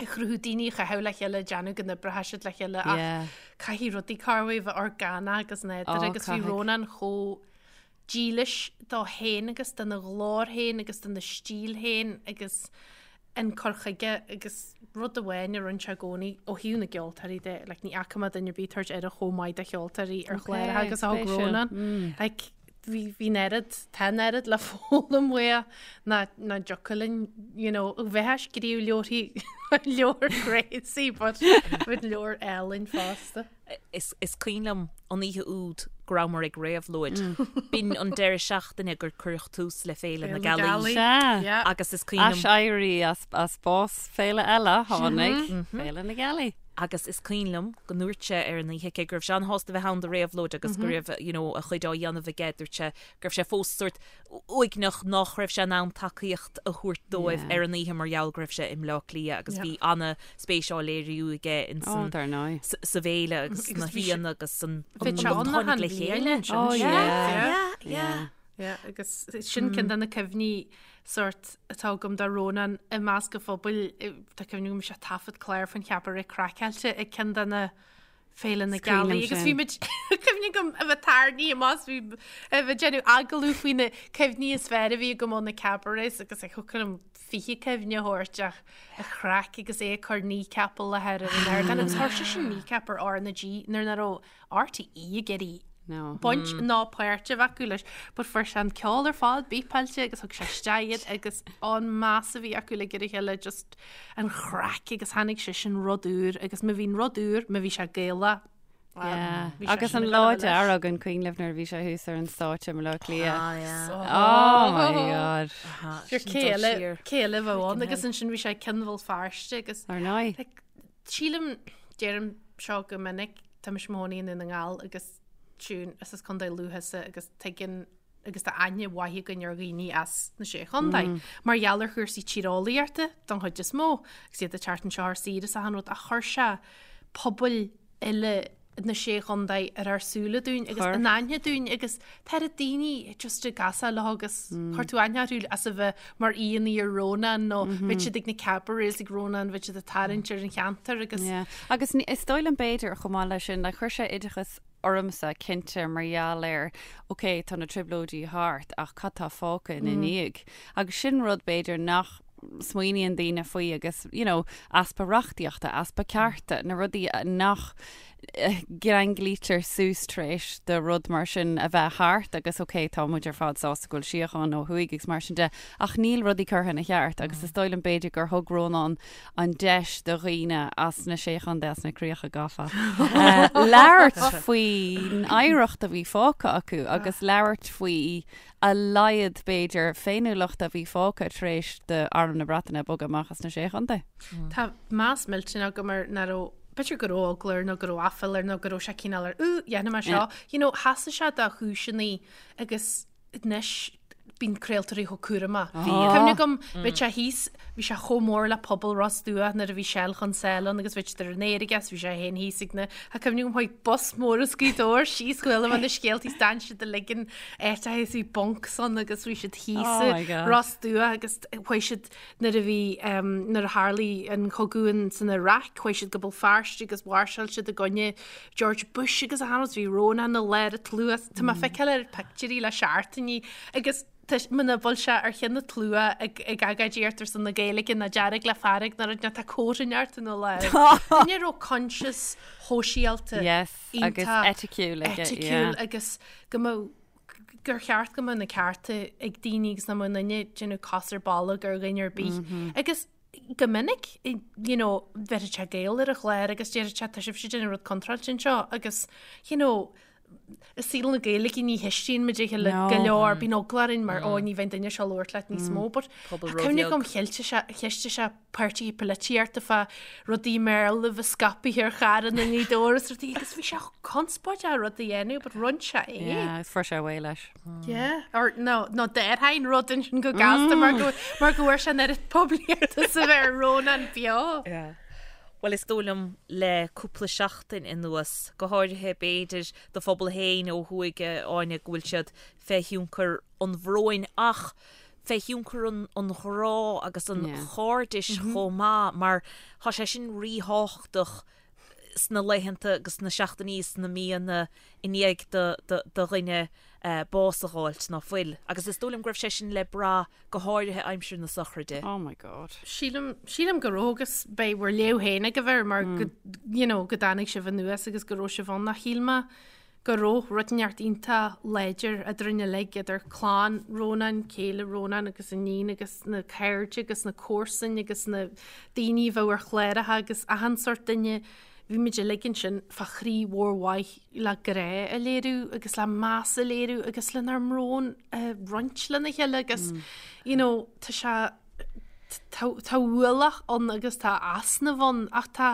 Speaker 3: a chruthú daoine a chaitheamh le chéile déanamh go n-oibreoidh siad le chéile ach caithfidh rudaí corruair a bheith orgánach agus nádúrtha agus bhí Rónán chomh dílis dó féin agus dona ghlór féin agus dona stíl féin agus an cur chuige agus rud amháin a rinne sé i gcónaí ó thaobh na gceoltóirí de, like, ní fhaca mé duine ar bith ag tabhairt aire chomh maith do cheoltóirí ar chláracha agus a thug Rónán. Like, bhí bhí an oiread, tá an oiread le foghlaim uaidh ná ná dtiocfadh linn, you know, bheith ag scríobh leabharthaí leabhar crazy but bheadh leabhar álainn fosta.
Speaker 2: Is is cuimhin liom an oíche úd go rabhamar ag réabhlóid. B'in an deireadh seachtaine gur cuireadh tús le Féile na Gealaí.
Speaker 4: Sea.
Speaker 2: Agus is cuimhin liom.
Speaker 4: Aiséirí as as bás féile eile tháinig Féile na Gealaí.
Speaker 2: Agus is cuimhin liom go ndúirt sé ar an oíche cé go raibh sé an-shásta bheith ann do réabhlóid agus go raibh you know a chuid á dhéanamh aige, dúirt sé go raibh sé fós sórt uaigneach nach raibh sé in ann tacaíocht a thabhairt dóibh ar an oíche mar gheall go raibh sé i mBleá Cliath agus bhí ana-spéis á léiriú aige in san sa bhféile agus sna haíonna agus san
Speaker 3: Bhí sé
Speaker 2: an
Speaker 3: ann
Speaker 2: tháinig
Speaker 3: achan
Speaker 2: le
Speaker 3: bhliain
Speaker 2: chéile.
Speaker 3: ansin.
Speaker 4: Oh
Speaker 3: Yeah,
Speaker 4: yeah.
Speaker 3: yeah. Yeah, agus sin ceann de na cuimhní sórt atá agam de Rónán i measc an phobail, tá cuimhne agam bhí sé ag taifead clár faoin Chabaret Craiceáilte ag ceann de na Féile na
Speaker 4: Is cuimhin
Speaker 3: Gealaí
Speaker 4: liom
Speaker 3: agus
Speaker 4: sin.
Speaker 3: bhí muid cuimhne agam a bheith tarraingthe amach bhí a bheith déanamh agallamh faoi na cuimhní is fearr a bhí agam ó na cabarets agus ag thiocfadh liom 20 cuimhne a thabhairt ach an chraic agus é ag cur Kneecap i láthair ar an ardán agus chuir sé sin Kneecap ar R na G nuair nach raibh RTÉ ag iarraidh
Speaker 4: No.
Speaker 3: baint ná páirt a bheith acu leis but fuair sé an ceol ar fad bípeáilte agus thug sé isteach iad agus an meas a bhí acu le ar a chéile just an chraic agus tháinig sé sin rud úr agus má bhíonn rud úr, má bhí sé Gaelach.
Speaker 4: Yeah.
Speaker 3: Bhí sé
Speaker 4: Agus
Speaker 3: sin
Speaker 4: an
Speaker 3: ag
Speaker 4: lá
Speaker 3: gabháil leis.
Speaker 4: dearg an cuimhin libh nuair a bhí sé thuas ar an stáitse i mBaile Átha Cliath.
Speaker 2: Ah, yeah.
Speaker 4: Oh my god.
Speaker 3: Sure,
Speaker 2: Sin
Speaker 3: cé
Speaker 2: dul
Speaker 3: eile
Speaker 2: siar.
Speaker 3: cé eile a bheadh ann agus ansin bhí sé ag Ceann Bhéal Feirste agus
Speaker 4: Ar ndóigh.
Speaker 3: like, sílim deirim seo go minic tá mise i mo chónaí i nDún na nGall agus Siún is as Contae Lú thusa agus tuigeann agus tá aithne mhaith againn ar dhaoine as na Sé Chontae, mar gheall ar chúrsaí tíreolaíochta don chuid is mó, agus iad ag teacht anseo ar saoire is achan rud, ach chuir sé pobail uile na Sé Chontae ar ár súile dúinn agus in aithne dúinn agus tá oiread daoine just ag casadh leo agus chuir tú aithne orthu as a bheith mar aíonna ar Rónán nó bheadh siad ag na cabarets ag Rónán, bheadh siad ag tarraingt ar an cheantar agus.
Speaker 4: Yeah. Agus is dóigh liom b'fhéidir chomh maith leis sin, like, chuir sé oideachas ormsa, cinnte, mar gheall ar, ok, tá na trioblóidí thart ach cad tá fágtha ina ndiaidh? Agus sin rud, b'fhéidir, nach smaoiníonn daoine faoi agus, you know, easpa reachtaíochta, easpa cearta, na rudaí nach gceanglaítear suas tar éis do rud mar sin a bheith thart agus ok, tá muid ar fad sásta go bhfuil síocháin ó thuaidh agus mar sin de ach níl rudaí curtha ina cheart agus is dóigh liom b'fhéidir gur thug Rónán an deis do dhaoine as na Sé Chontae, as na Críocha Gafa, labhairt faoin oidhreacht a bhí fágtha acu agus labhairt faoi a laghad, b'fhéidir, féiniúlachta a bhí fágtha tar éis d'Arm na Breataine bogadh amach as na Sé Chontae.
Speaker 3: Tá meas millteanach agam air nach raibh, b'fhéidir go raibh eagla air nó go raibh aiféala air nó go raibh sé cineál ar, Ooh, dhéanfaidh mé seo. You know, sheasaigh sé dá chúiseanna agus anois bíonn craoltóirí chomh cúramach. Cuimhne agam, bhí sé thíos, bhí sé chomh mór le pobal Ros Dumhach nuair a bhí Shell chun Sáile ann agus bhí siad ar an aer aige is bhí sé féin thíos ag na, tá cuimhne agam chuaigh bus mór as Gaoth Dobhair síos chuala mé na scéalta is d'fhan siad uilig in áiteacha is bhí bunks ann agus bhí siad thíos
Speaker 4: Oh my
Speaker 3: i
Speaker 4: God.
Speaker 3: Ros Dumhach agus chuaigh siad nuair a bhí, nuair a tharlaigh an cogadh in san Iaráic chuaigh siad go Béal Feirste agus mháirseáil siad i gcoinne George Bush agus achan rud, bhí Rónán i lár an tslua, tá mé ag feiceáil ar pictiúirí le seachtainí agus. Muna bhfuil sé ar cheann an tslua ag ag agóidíocht ar son na Gaeilge ná dearg le fearg ná rud tá cóta inteacht ina láimh. Duine a raibh coinsias shóisialta
Speaker 4: Yes, agus
Speaker 3: iontach
Speaker 4: eiticiúil aige,
Speaker 3: eiticiúil
Speaker 4: yeah.
Speaker 3: agus go mbeadh gur cheart go mbeadh na cearta ag daoine agus nach mbeadh aon duine ag déanamh cos ar bolg ar dhuine ar bith. Agus go minic, you know, bheirfeadh sé Gael ar an chlár agus déarfadh sé tá sibhse ag déanamh rud contráilte anseo agus, you know, i saol na Gaeilge ní cheistíonn muid a chéile go leor, bíonn eagla orainn mar ó ní bheidh an duine seo ag labhairt leat níos mó, but
Speaker 2: Pobal
Speaker 3: tá cuimhne
Speaker 2: róbheag.
Speaker 3: agam cheistigh sé, cheistigh sé páirtithe polaitíochta fá rudaí i mBéarla a bheith scaipthe ar charranna i nGaoth Dobhair is rudaí agus bhí sé conspóideach rud a dhéanamh, but rinne sé é.
Speaker 4: Yeah, agus fuair sé away leis.
Speaker 3: Yeah, or no, no déarfainn rud ansin go gasta mar go mar go bhfuair sé an oiread poiblíochta is a bheir Rónán beo.
Speaker 2: Yeah. Bhuel, is dóigh liom le cúpla seachtain anuas, go háirithe b'fhéidir do phobal féin ó thuaidh, a Áine, go bhfuil siad fé thionchar an bhróin ach fé thionchar an an ghrá agus an chairdis chomh maith mar tá sé sin ríthábhachtach sna laethanta agus sna seachtainí is sna míonna i ndiaidh do dhuine bás a dh'fháilt ná fuil. Agus is dóigh liom go raibh sé sin le brath go háirithe aimsir na sochraide.
Speaker 4: Oh my God.
Speaker 3: Sílim, sílim go raibh agus beidh bhur léamh féin agaibh air mar go, you know, go dtáinig sibh anuas agus go raibh sibh ann ach shíl mé go raibh rud inteacht iontach láidir eadrainn uilig, idir clann Rónáin, céile Rónáin agus a níon agus na cairde agus na comharsain agus na daoine a bheadh ar chláracha agus achan sórt duine. Bhí muid uilig ansin fá chroí mhór mhaith le grá a léiriú agus le meas a léiriú agus lenár mbrón a roinnt lena chéile agus you know tá sé tá tá ualach ann agus tá easnamh ann ach tá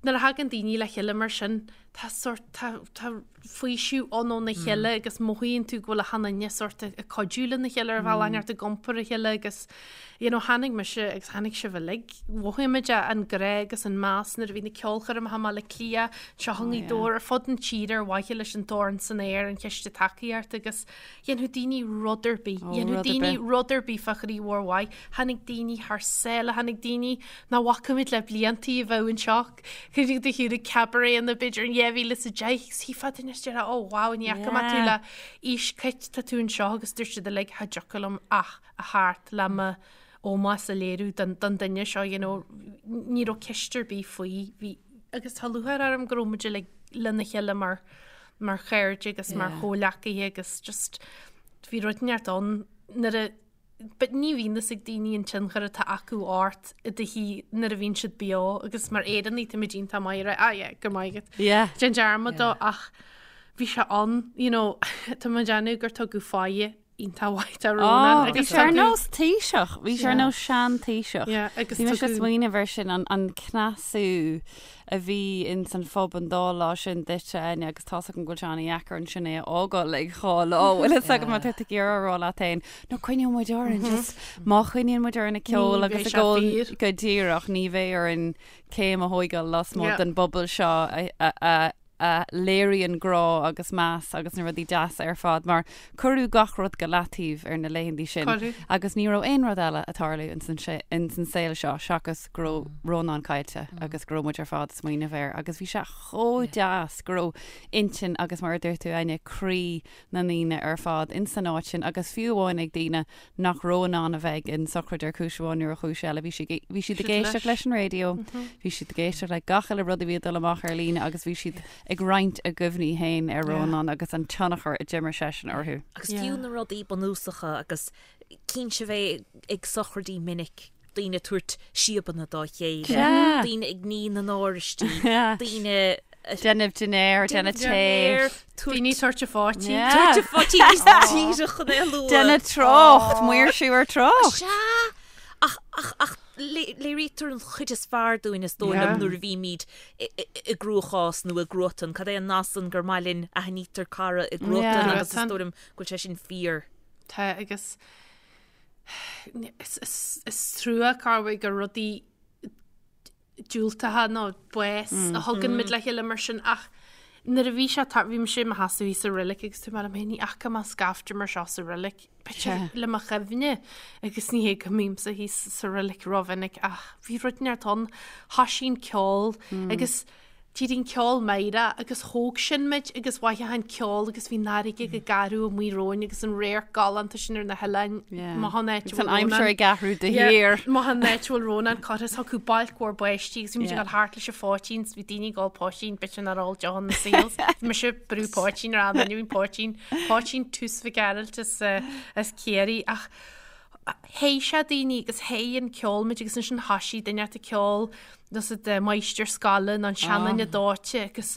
Speaker 3: nuair a thagann daoine le chéile mar sin tá sórt, tá, tá faoiseamh ann óna chéile agus mothaíonn tú go bhfuil achan duine sórt ag cuidiú lena chéile ar bhealach inteacht ag iompar a chéile agus you know tháinig mise agus tháinig sibh uilig, mhothaigh muid an grá agus an meas nuair a bhí na ceolchoirmeacha i mBaile Átha Cliath, anseo i nGaoth Dobhair, ar fud na tíre ar mhaithe leis an Dorn san Aer, an chiste tacaíochta agus dhéanfadh daoine rud ar bith, dhéanfadh daoine rud ar bith fá chroí mhór mhaith, tháinig daoine thar sáile, tháinig daoine nach bhfaca muid le bliantaí a bheadh anseo. Cuimhnigh do shiúr ag cabaret b'fhéidir in 2010 agus shílfeá duine is déarfá oh wow ní fhaca mé tú le aois cait tá tú anseo agus dúirt siad uilig cha dtiocfadh liom ach a theacht le mo ómós a léiriú don don duine seo you know ní raibh ceist ar bith faoi bhí agus tá lúcháir orm go raibh muid uilig lena chéile mar mar chairde agus mar chomhghleacaithe agus just bhí rud inteacht ann nuair a But ní bhíonn fhios ag daoine an tionchar atá acu ort i do shaol nuair a bhíonn siad beo agus mar Éireannaigh táimid iontach maith ag rá ah yeah go maith agat.
Speaker 4: Yeah.
Speaker 3: Déan dearmad dó ach bhí sé ann you know tá mé ag déanamh gur tugadh fáidhe iontach mhaith do Rónán
Speaker 4: Oh, bhí
Speaker 3: agus
Speaker 4: sé ar
Speaker 3: tugadh
Speaker 4: nós Taoiseach, bhí sé ar nós sean Taoiseach.
Speaker 3: Yeah, agus
Speaker 4: Bhí mise ag
Speaker 3: tugadh
Speaker 4: smaoineamh air sin an an cneasú a bhí ins an phub an dá lá sin duitse, Áine, agus tá's agam go bhfuil sé an-dheacair ansin é a fhágáil ag dhá lá, bhfuil fhios agam má tá tú ag iarraidh a rá leat féin, no coinneoidh muid orainn, just má choinníonn muid orainn ag ceol agus ag ól go díreach, ní bheidh orainn céim a thóigeáil lasmuigh den bpobal seo a a a léiríonn grá agus meas agus na rudaí deasa ar fad mar cuireadh gach rud go leataobh ar na laethanta sin agus ní raibh aon rud eile ag tarlú ins an saol seo seachas go raibh Rónán caillte agus go raibh muid ar fad ag smaoineamh air agus bhí sé chomh deas go raibh intinn agus mar a dúirt tú Áine, croí na ndaoine ar fad ins an áit sin agus fiú amháin ag daoine nach raibh in ann a bheith ag an sochraid ar chúis amháin nó ar chúis eile bhí siad bhí siad ag éisteacht leis an raidió, bhí siad ag éisteacht le gach uile rud a bhí ag dul amach ar líne agus bhí siad ag roinnt a gcuimhní féin ar Rónán agus an tionchar a d'imir seisean orthu.
Speaker 2: Agus fiú na rudaí bunúsacha agus cinnte bheith ag sochraidí minic, daoine ag tabhairt síobanna dá chéile, daoine ag ní na n-áraistí, daoine
Speaker 4: Déanamh dinnéar, déanamh tae.
Speaker 3: Daoine tabhairt a pháití.
Speaker 2: Tabhairt a pháití níos díreach chun é a lua.
Speaker 4: Déanamh trácht, maoirsiú ar trácht.
Speaker 2: Sea! Ach, ach, ach léirítear an chuid is fearr dúinn is dóigh liom nuair a bhímid i gcruachás nó i gcruatan. Cad é an nath san gur maith linn aithnítear cara i gcruatan agus is dóigh liom go bhfuil sé sin fíor.
Speaker 3: Tá agus is trua corruair gur rudaí diúltacha nó bás a thugann muid le chéile mar sin ach nuair a bhí sé bhí mise i mo sheasamh thíos sa reilig agus dúirt mé liom féin ní fhaca mé scaifte mar seo sa reilig b'fhéidir le mo chuimhne agus ní hé go mbímse thíos sa reilig rómhinic ach bhí rud inteacht ann thoisigh an ceol agus. D'éirigh an ceol meidhreach agus thóg sin muid agus mhothaigh an ceol agus bhí an fharraige go garbh amuigh romhainn agus an radharc galánta sin ar na hoileáin. Maith an áit a
Speaker 4: Agus an
Speaker 3: bhfuil
Speaker 4: aimsir
Speaker 3: Rónán.
Speaker 4: ag athrú de shíor.
Speaker 3: Maith an áit a bhfuil Rónán curtha is thiocfadh bailc mhór báistí agus bhí muid ag dul thart leis an phoitín 's bhí daoine ag ól poitín b'fhéidir nár ól deoch ina saol. Bhí mise ag brú poitín ar an duine bhí poitín, poitín tús Mhic Gearailt as, as Ciarraí ach Théigh sé daoine agus théigh an ceol muid agus ansin thoisigh duine ort ag ceol nós de máistir scoile nó an seanduine dóite agus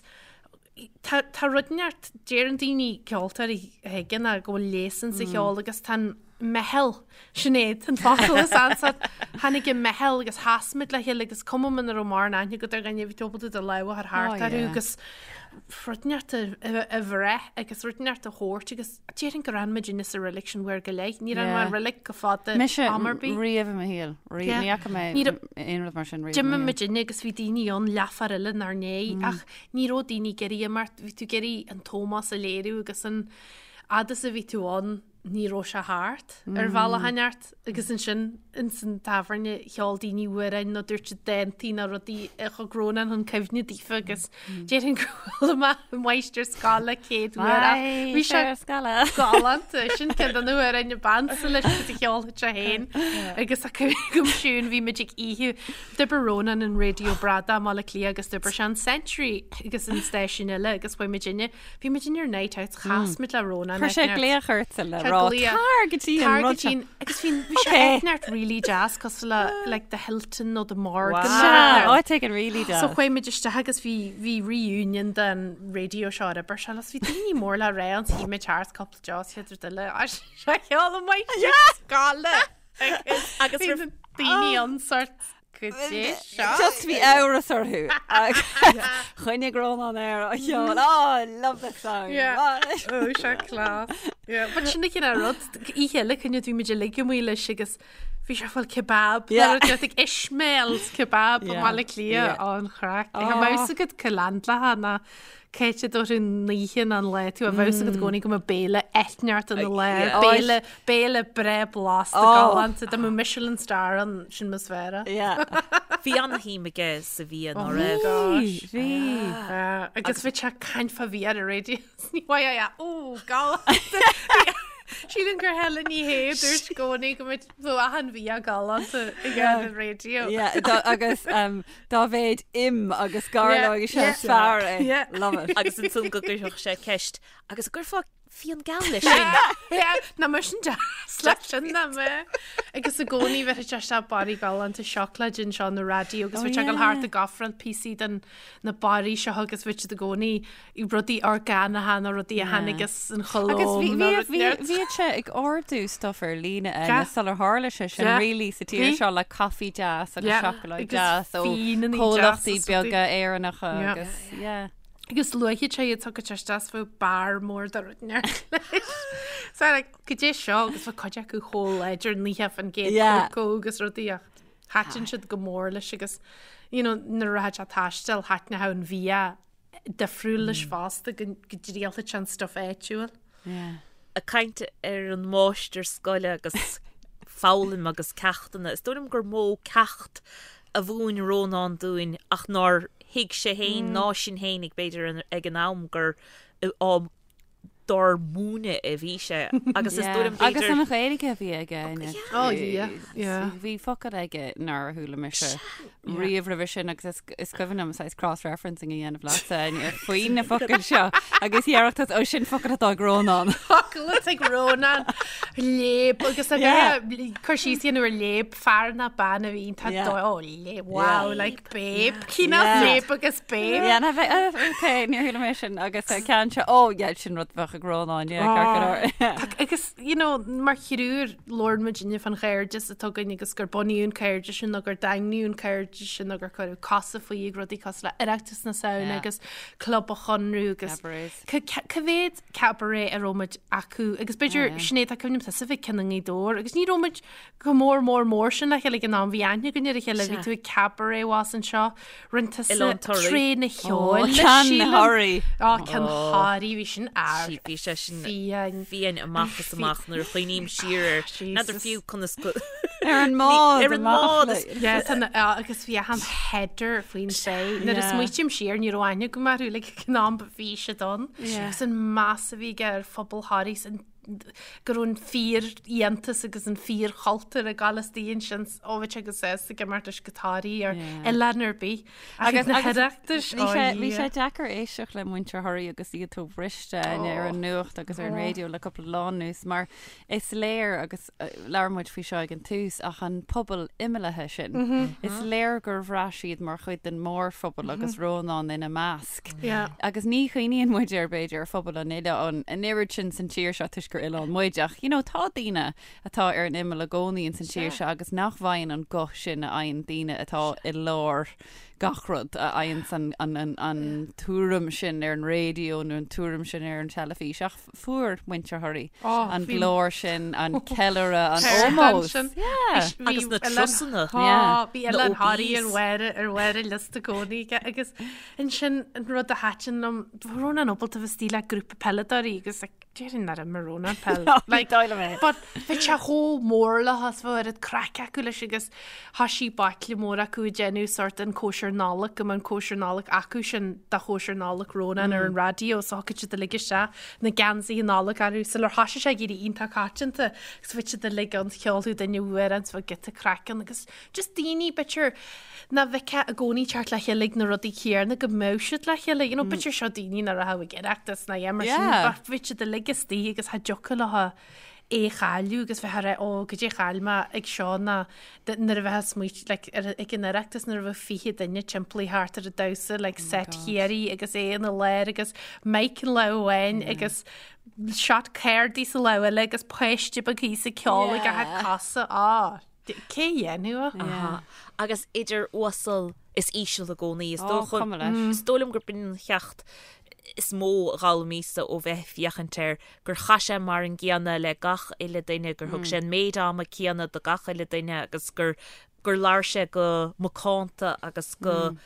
Speaker 3: tá tá rud inteacht deireann daoine ceoltóirí a thuigeann go bhfuil léas insa cheol agus tá an meitheal Sinéad an focal is ansa tháinig an meitheal agus sheas muid le chéile agus cuma muna raibh mórán aithne agat ar dhuine bhí tú ábalta do lámh a chur thart orthu agus rud inteacht a bhreith agus rud inteacht a thabhairt agus Déarfainn gur fhan muidinne sa reilig sin uair go leith. Níor fhan mé i reilig go fada
Speaker 4: Mise
Speaker 3: am ar bith.
Speaker 4: riamh i mo shaol. Riamh.
Speaker 3: Yeah.
Speaker 4: Ní fhaca mé
Speaker 3: Ní raibh-
Speaker 4: aon rud mar sin riamh i mo
Speaker 3: D'imigh
Speaker 4: shaol.
Speaker 3: muidinne agus bhí daoine ann leathuair eile inár ndiaidh ach ní raibh daoine ag iarraidh imeacht. Bhí tú ag iarraidh an t-ómós a léiriú agus an fhad is a bhí tú ann ní raibh sé thart ar bhealach inteacht agus ansin ins an tábhairne cheol daoine amhráin nó dúirt siad dántaí nó rudaí a thug Rónán chun cuimhne daofa agus déarfainn go bhfuil mé máistir scoile céad uair ach bhí sé
Speaker 4: scoile.
Speaker 3: galánta sin ceann de na hamhráin ab ansa leis agus a cheolfadh sé féin agus a go siún bhí muid ag oíche d'oibir Rónán an Raidió Bradach i mBaile Átha Cliath agus d'oibir sé an Century agus an stáisiún eile agus chuaigh muidinne Bhí muid in ar night out, chas muid le Rónán.
Speaker 4: Chuir sé glaoch ortsa le rá tar go dtí an rud seo.
Speaker 3: Agus bhí bhí sé áit inteacht really deas cosúil le like the Hilton nó the Morgan.
Speaker 4: Sea, áit éigin really deas.
Speaker 3: So chuaigh muid isteach agus bhí bhí reunion den radio seo ar oibir sé agus bhí daoine mór le rá ann shuigh muid thart cúpla deos chéad rud eile sé cheol an mhaith scoile
Speaker 2: Agus
Speaker 3: bhí na daoine ann sort Goidé seo.
Speaker 4: Just bhí amhras orthu. Choinnigh Rónán air á cheol. Oh, I love this song.
Speaker 3: Yeah. Ó, sé class. Yeah. But sin an cineál rud, oíche eile cuimhne bhí muid uilig amuigh leis agus bhí sé ag fáil kebab.
Speaker 4: Yeah.
Speaker 3: Nó rud ag Ishmael's kebab i
Speaker 4: Yeah.
Speaker 3: mBaile Átha Cliath.
Speaker 4: Yeah.
Speaker 3: Ó, an chraic.
Speaker 4: Oh.
Speaker 3: Tá a fhios agat cá leaindeálfá ná Cá háit a dtabharfaidh an oíche ná an lá tú a bheadh a fhios agat i gcónaí go mbeadh béile inteacht ina lár,
Speaker 4: Oh,
Speaker 3: béile, béile breá blasta
Speaker 4: Oh.
Speaker 3: galánta, dá mbeadh Michelin star ann, sin mo sféara.
Speaker 4: Yeah.
Speaker 2: Bhí an-shuim aige sa bhia
Speaker 3: Oh
Speaker 2: ná
Speaker 3: my
Speaker 2: raibh.
Speaker 3: gosh.
Speaker 4: Bhí.
Speaker 3: Ah, Agus bhí sé ag caint fá bhia ar an raidió. Ní mhaith é, ó, galánta. Sílim gur Helen Ní Shé a dúirt i gcónaí go mbeadh achan bhia galánta ag an raidió.
Speaker 4: Yeah, agus um, dá mhéad im agus gairleog is ea is fearr é. Love it.
Speaker 2: Agus ansan go gcuirfeadh sé ceist, agus an gcuirfeá fíon geal leis sin?
Speaker 3: Nach mbeadh sin deas leis sin nach mbeadh. Agus i gcónaí bheadh sé isteach barraí galánta seacláide anseo na raidió agus bheadh sé ag dul thart ag ofráil píosaí den na barraí seo agus bheadh siad i gcónaí rudaí orgánacha nó rudaí a tháinig as an Cholóim nó rud
Speaker 4: Agus bhíodh sé ag ordú stuff ar líne Áine sular tharla sé sin really sa tír seo le caife deas agus seacláid deas ó chomhlachtaí beaga Éireannacha agus yeah.
Speaker 3: Agus luaigh sé iad tugadh sé isteach bheadh barr mór de rud inteacht leis. So like goidé seo agus bheadh cuid acu chomh láidir 90% cócó agus rudaí ach thaitin siad go mór leis agus you know nuair a rachadh sé ag taisteal thaitneodh an bhia difriúil leis fosta go dtriailfeadh sé an stuff áitiúil.
Speaker 2: Ag caint ar an máistir scoile agus foghlaim agus ceachtanna, is dóigh liom gur mó ceacht a mhúin Rónán dúinn ach nár thuig sé féin ná sinn féinig b'fhéidir ag an am gur á dár múineadh a bhí sé agus is dóigh liom
Speaker 4: Agus
Speaker 2: b'fhéidir
Speaker 4: an Ghaeilge a bhí aige Áine.
Speaker 3: Oh yeah, yeah.
Speaker 4: Bhí focail aige nár chuala mise riamh roimhe sin agus is is cuimhin liom saghas cross-referencing a dhéanamh leatsa Áine faoi na focail seo agus dhéarfadh tú ó sin focal atá ag Rónán.
Speaker 3: Focal atá ag Rónán léib agus a bheith cur síos a dhéanamh ar léib fear ná bean a bhí tá
Speaker 4: Yeah.
Speaker 3: dó ó léib wow like babe cineál
Speaker 4: Yeah.
Speaker 3: léib agus babe.
Speaker 4: Yeah, na bheith ok níor chuala mé sin agus uh, ceann seo ó yeah sin rud bheadh ag Rónán yeah ceart go leor.
Speaker 3: Tá- Agus you know, mar thriúr labhrann muidinne fán chairdeas atá againn agus gur bunaíodh an cairdeas sin nó gur daingníodh an cairdeas sin nó gur cuireadh cosa faoi ag rudaí cosúil le Oireachtas na Samhna
Speaker 4: Yeah.
Speaker 3: agus Club an Chonradh agus
Speaker 4: Cabarets.
Speaker 3: ca- ca- cá mhéad cabaret a raibh muid acu agus b'fhéidir Sinéad tá cuimhne tusa bheith ceann i nGaoth Dobhair agus ní raibh muid Chomh mór mór mór sin le chéile ag an am, bhí aithne againn ar a chéile, bhí tú ag cabaret abhus anseo, rinne tusa
Speaker 2: Oileán Thoraí.
Speaker 3: Tréith na cheoil leis,
Speaker 4: Ceann
Speaker 3: sílim.
Speaker 4: Thoraí.
Speaker 3: Á, ceann Thoraí, bhí sin ar
Speaker 2: Sí, bhí sé sin
Speaker 3: fiáin.
Speaker 2: fiáin amach is amach nuair a chuimhním siar air. N'fheadar
Speaker 3: Jesus.
Speaker 2: fiú conas go.
Speaker 4: Ar an mbád
Speaker 2: Ar an mbád is-
Speaker 3: Yeah, tá na- ah, agus bhí achan header faoin sé. Nuair a
Speaker 4: Yeah.
Speaker 3: smaoitím siar ní raibh aithne agam orthu like ag an am but bhí siad ann.
Speaker 4: Yeah.
Speaker 3: Agus an meas a bhí aige ar phobal Thoraí is an go raibh an fíor-fhiántas agus an fíor-chultúr ag gabháil istigh ansin ó bhí sé go sásta ag imirt leis go Thoraí ar
Speaker 4: Yeah.
Speaker 3: oileán ar bith. Ach ag na hOireachtais,
Speaker 4: Bhí sé,
Speaker 3: ó
Speaker 4: bhí sé
Speaker 3: Dhia.
Speaker 4: deacair éisteacht le muintir Thoraí agus iad chomh briste ar an nuacht agus ar an raidió le cúpla lá anuas mar is léir agus labhair muid faoi seo ag an tús ach an pobal imeallaithe sin, is léir gur bhraith siad mar chuid den mórphobal agus Rónán ina measc. Agus ní chuimhníonn muid ar b'fhéidir ar phobal an oileáin an oiread sin san tír seo toisc gur oileán muid ach you know tá daoine atá ar an imeall i gcónaí ins an tír seo agus nach bhfaigheann an guth sin a fhaigheann daoine atá i lár gach rud, a fhaigheanns an, an, an, an tuairim sin ar an raidió nó an tuairim sin ar an teilifís ach fuair muintir Thoraí
Speaker 3: Oh,
Speaker 4: an
Speaker 3: bhí-
Speaker 4: glór sin, an ceiliúradh, an
Speaker 3: Ceird
Speaker 4: ómós.
Speaker 3: ansin.
Speaker 4: Yeah.
Speaker 3: Bhí
Speaker 2: Agus na
Speaker 3: Oileán-
Speaker 2: trusanna.
Speaker 3: Tá,
Speaker 4: Yeah.
Speaker 3: bhí
Speaker 2: Na
Speaker 3: Oileán Thoraí ar
Speaker 2: OBs.
Speaker 3: bharr ar bharr an liosta i gcónaí aige agus ansin an rud a thaitin liom, bhí Rónán ábalta bheith istigh le grúpa peileadóirí agus like, Déarfainn nár imir Rónán peil. Like, but bhí sé chomh mór leo is bhí oiread craic acu leis agus thoisigh baicle mór acu ag déanamh sort an cóisir Nollag go mbeadh an cóisir Nollag acu sin de chóisir Nollag Rónán ar an raidió so thiocfadh siad uilig isteach na geansaithe Nollag orthu sular thoisigh sé ag éirí iontach coitianta agus bhí siad uilig ann cheolfadh duine amhrán is bheadh giota craic ann agus just daoine b'fhéidir nach bhfeicfeá i gcónaí teacht le chéile ag na rudaí céanna go mbeadh siad le chéile. You know, b'fhéidir seo daoine nach raibh ag Oireachtas ná mar sin,
Speaker 4: Yeah.
Speaker 3: but bhí siad uilig istigh agus cha dtiocfadh leo é a chailleadh agus bheith ag rá, ó, goidé chaill mé ag seo ná nuair a bheifeá ag smaoitiú, like, ar, ag an Oireachtas nuair a bheadh 20 duine timpeall thart ar an damhsa, like, set Chiarraí agus é ina lár agus mic in lámh amháin agus shot cárdaí sa lámh eile agus páiste beag thíos ag ceol ag a cosa. Á. Cé a dhéanfadh é?
Speaker 2: Aha. Agus idir uasal is íseal i gcónaí. Is
Speaker 4: Ó,
Speaker 2: dócha,
Speaker 4: cuma leis.
Speaker 2: is dóigh liom gurb in an cheacht is mó a d'fhoghlaimíos-sa ó bheith ag féachaint air, gur chaith sé mar an gcéanna le gach uile duine, gur thug sé an méid ama céanna do gach uile duine agus gur, gur labhair sé go macánta agus go,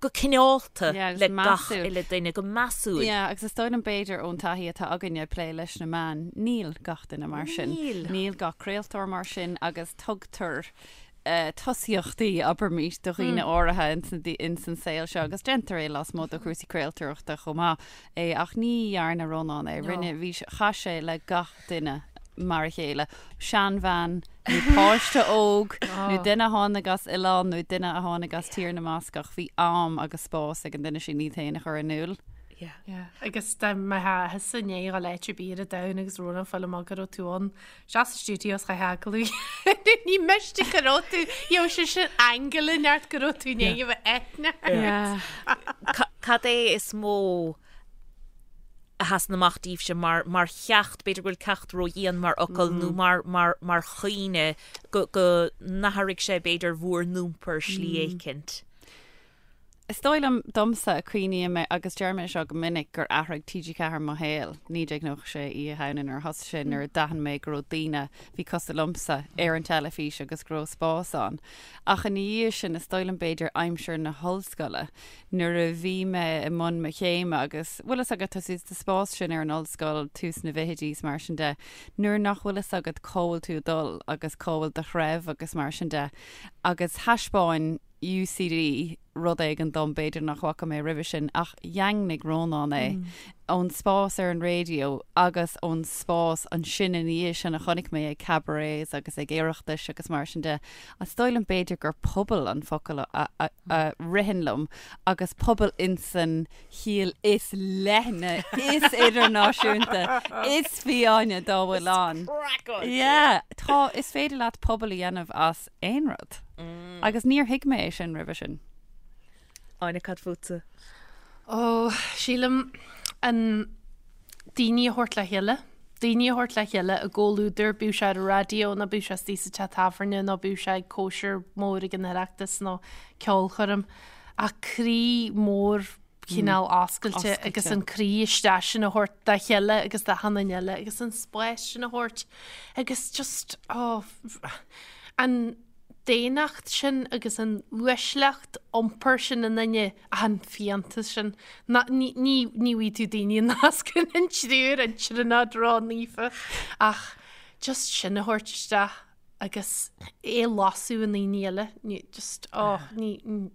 Speaker 2: go cineálta le gach uile duine, go measúil.
Speaker 4: Yeah, agus is dóigh liom b'fhéidir ón taithí atá againne ag plé leis na meáin, níl gach duine mar sin.
Speaker 2: Níl.
Speaker 4: Níl gach craoltóir mar sin agus tugtar tosaíochtaí, abraimís, do dhaoine áirithe ins an saol seo agus déantar é lasmuigh de chúrsaí craoltóireachta chomh maith é ach ní dhearna Rónán é. Rinne, bhí, chaith sé le gach duine mar a chéile, seanbhean nó páiste óg nó duine a tháinig as oileán nó duine a tháinig as Tír na mBascach, bhí am agus spás ag an duine sin iad féin a chur in iúl.
Speaker 3: Yeah. Agus dá mbeifeá thusa i ndiaidh dhul áit ar bith ar an domhan agus Rónán ag fáil amach go raibh tú ann, isteach sa stiúideo is chaithfeá agallamh a dhéanamh. Ní miste go raibh tú, gheobhadh sé sin aingeal inteacht go raibh tú i ndiaidh a bheith aithne ort.
Speaker 2: Cad é is mó a sheasann amach daoibhse mar, mar cheacht, b'fhéidir go bhfuil ceacht ródhian mar fhocal nó mar, mar, mar chuimhne go, go n-athraigh sé b'fhéidir bhur n-iompar slí éicint.
Speaker 4: Is dóigh liom, domsa, cuimhním mé, agus deir mé seo go minic, gur athraigh TG4 mo shaol, 1996, Oíche Shamhna nuair a thosaigh sé, nuair a d'aithin mé go raibh daoine a bhí cosúil liomsa ar an teilifís agus go raibh spás ann. Ach ina dhiaidh sin, is dóigh liom b'fhéidir aimsir na hollscoile, nuair a bhí mé i mbun mo chéime agus, bhfuil fhios agat, tá tú sa spás sin ar an ollscoil, tús na bhfichidí is mar sin de, nuair nach bhfuil fhios agat cá bhfuil tú ag dul agus cá bhfuil do threibh agus mar sin de. Agus thaispeáin UCD rud éigin dom, b'fhéidir nach bhfaca mé roimhe sin, ach dhaingnigh Rónán é ón spás ar an raidió agus ón spás ansin ina dhiaidh sin a chonaic mé ag cabarets agus ag Oireachtais agus mar sin de. Is dóigh liom b'fhéidir gur pobal an focal a a ritheann liom agus pobal insan chiall is leithne, is idirnáisiúnta, is fiáine dá bhfuil ann. Yeah, tá, is féidir leat pobal a dhéanamh as aon rud. Agus níor thuig mé é sin roimhe sin.
Speaker 2: Áine, cad fútsa?
Speaker 3: Ó, sílim an daoine a thabhairt le chéile. Daoine a thabhairt le chéile i gcomhluadar, bíodh sé ar an raidió nó bíodh sé istigh sa teach tábhairne nó bíodh sé ag cóisir mhór ag an Oireachtas nó ceolchoirm. Ach croí mór cineál oscailte agus an croí isteach sin a thabhairt dá chéile agus d'achan duine eile agus an spás sin a thabhairt agus just, oh, an daonnacht sin agus an uaisleacht iompair sin i nduine ach an fiántas sin. Ná, ní, ní, ní bhfaighidh tú daoine a nascann an triúr, an tríonóid ró-naofa ach Just sin a thabhairt isteach agus é a lasadh i ndaoine eile, ní, just, oh, ní,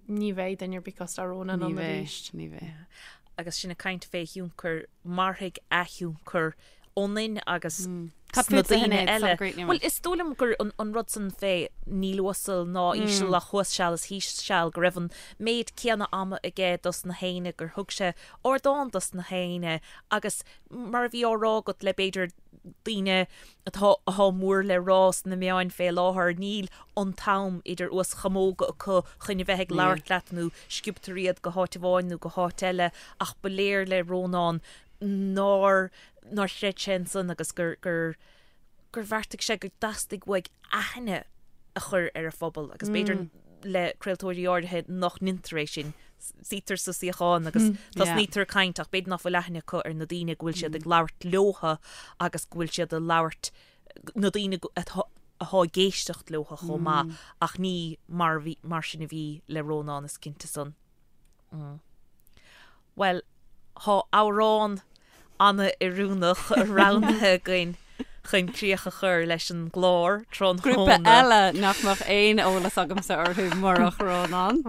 Speaker 3: ní bheidh duine ar bith cosúil le Rónán
Speaker 4: Ní
Speaker 3: ann
Speaker 4: bheidh,
Speaker 3: arís.
Speaker 4: ní bheidh.
Speaker 2: Agus sinn ag caint fé thionchar, mairfidh a thionchar ionainn agus
Speaker 4: Cad
Speaker 2: sna
Speaker 4: fútsa,
Speaker 2: daoine
Speaker 4: Sinéad?
Speaker 2: eile.
Speaker 4: Sula gcríochnaíonn
Speaker 2: Bhuel,
Speaker 4: muid.
Speaker 2: is dóigh liom gur an, an rud san fé níl uasal ná íseal ach thuas seal is thíos seal, go raibh an méid céanna ama aige dos na héinne, gur thug sé ardán dos na héinne agus mar a bhí á rá agat le b'fhéidir daoine atá atá mór le rá sna meáin fé láthair, níl an t-am idir uas chamóga acu chun a bheith ag labhairt leat nó sciobtar iad go háit amháin nó go háit eile ach ba léir le Rónán nár nár chreid sé ansan agus gur gur gur bheartaigh sé go dteastaigh uaidh aithne a chur ar a phobal agus b'fhéidir le craoltóirí áirithe nach ndeintear é sin. Suítear sa suíochán agus tosnaítear ag caint ach b'fhéidir nach bhfuil aithne acu ar na daoine go bhfuil siad ag labhairt leotha agus go bhfuil siad ag labhairt na daoine atá atá ag éisteacht leotha chomh maith ach ní mar bhí mar sin a bhí le Rónán is cinnte san. Bhuel, thá amhrán ana-oiriúnach roghnaithe againn chun críoch a chur leis an gclár
Speaker 4: Grúpa
Speaker 2: tráthnóna.
Speaker 4: eile nach mbeadh aon eolas agamsa orthu murach Rónán.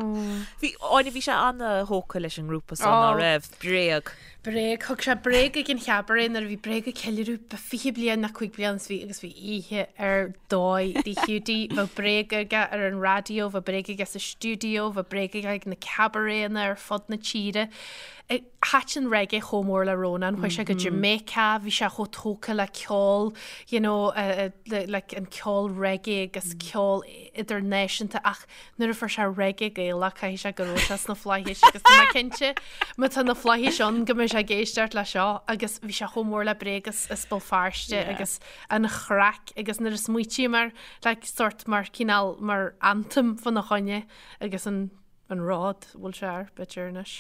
Speaker 2: Bhí, Áine, bhí sé ana-thógtha leis an ngrúpa so, ná raibh? Bréag.
Speaker 3: Bréag, thug sé Bréag ag an chabaret nuair a bhí Bréag ag ceiliúradh 20 bliain nó 5 bliana is bhí agus bhí oíche ar dóigh de Hiúdaí. Bheadh Bréag aige ar an raidió, bheadh Bréag aige sa stiúideo, bheadh Bréag aige ag na cabaretanna ar fud na tíre. Thaitin reggae chomh mór le Rónán, chuaigh sé go Jamaica, bhí sé chomh tógtha le ceol, you know, like an ceol reggae agus ceol idirnáisiúnta ach nuair a fuair sé reggae Gaelach caithfidh sé go raibh sé sna flaithis agus tá mé cinnte má tá na flaithis ann go mbeidh sé ag éisteacht le seo agus bhí sé chomh mór le Bréag as as Béal Feirste agus an chraic agus nuair a smaoitím air like sort mar cineál mar anthem fána choinne agus an an rud bhfuil sé ar b'fhéidir anois.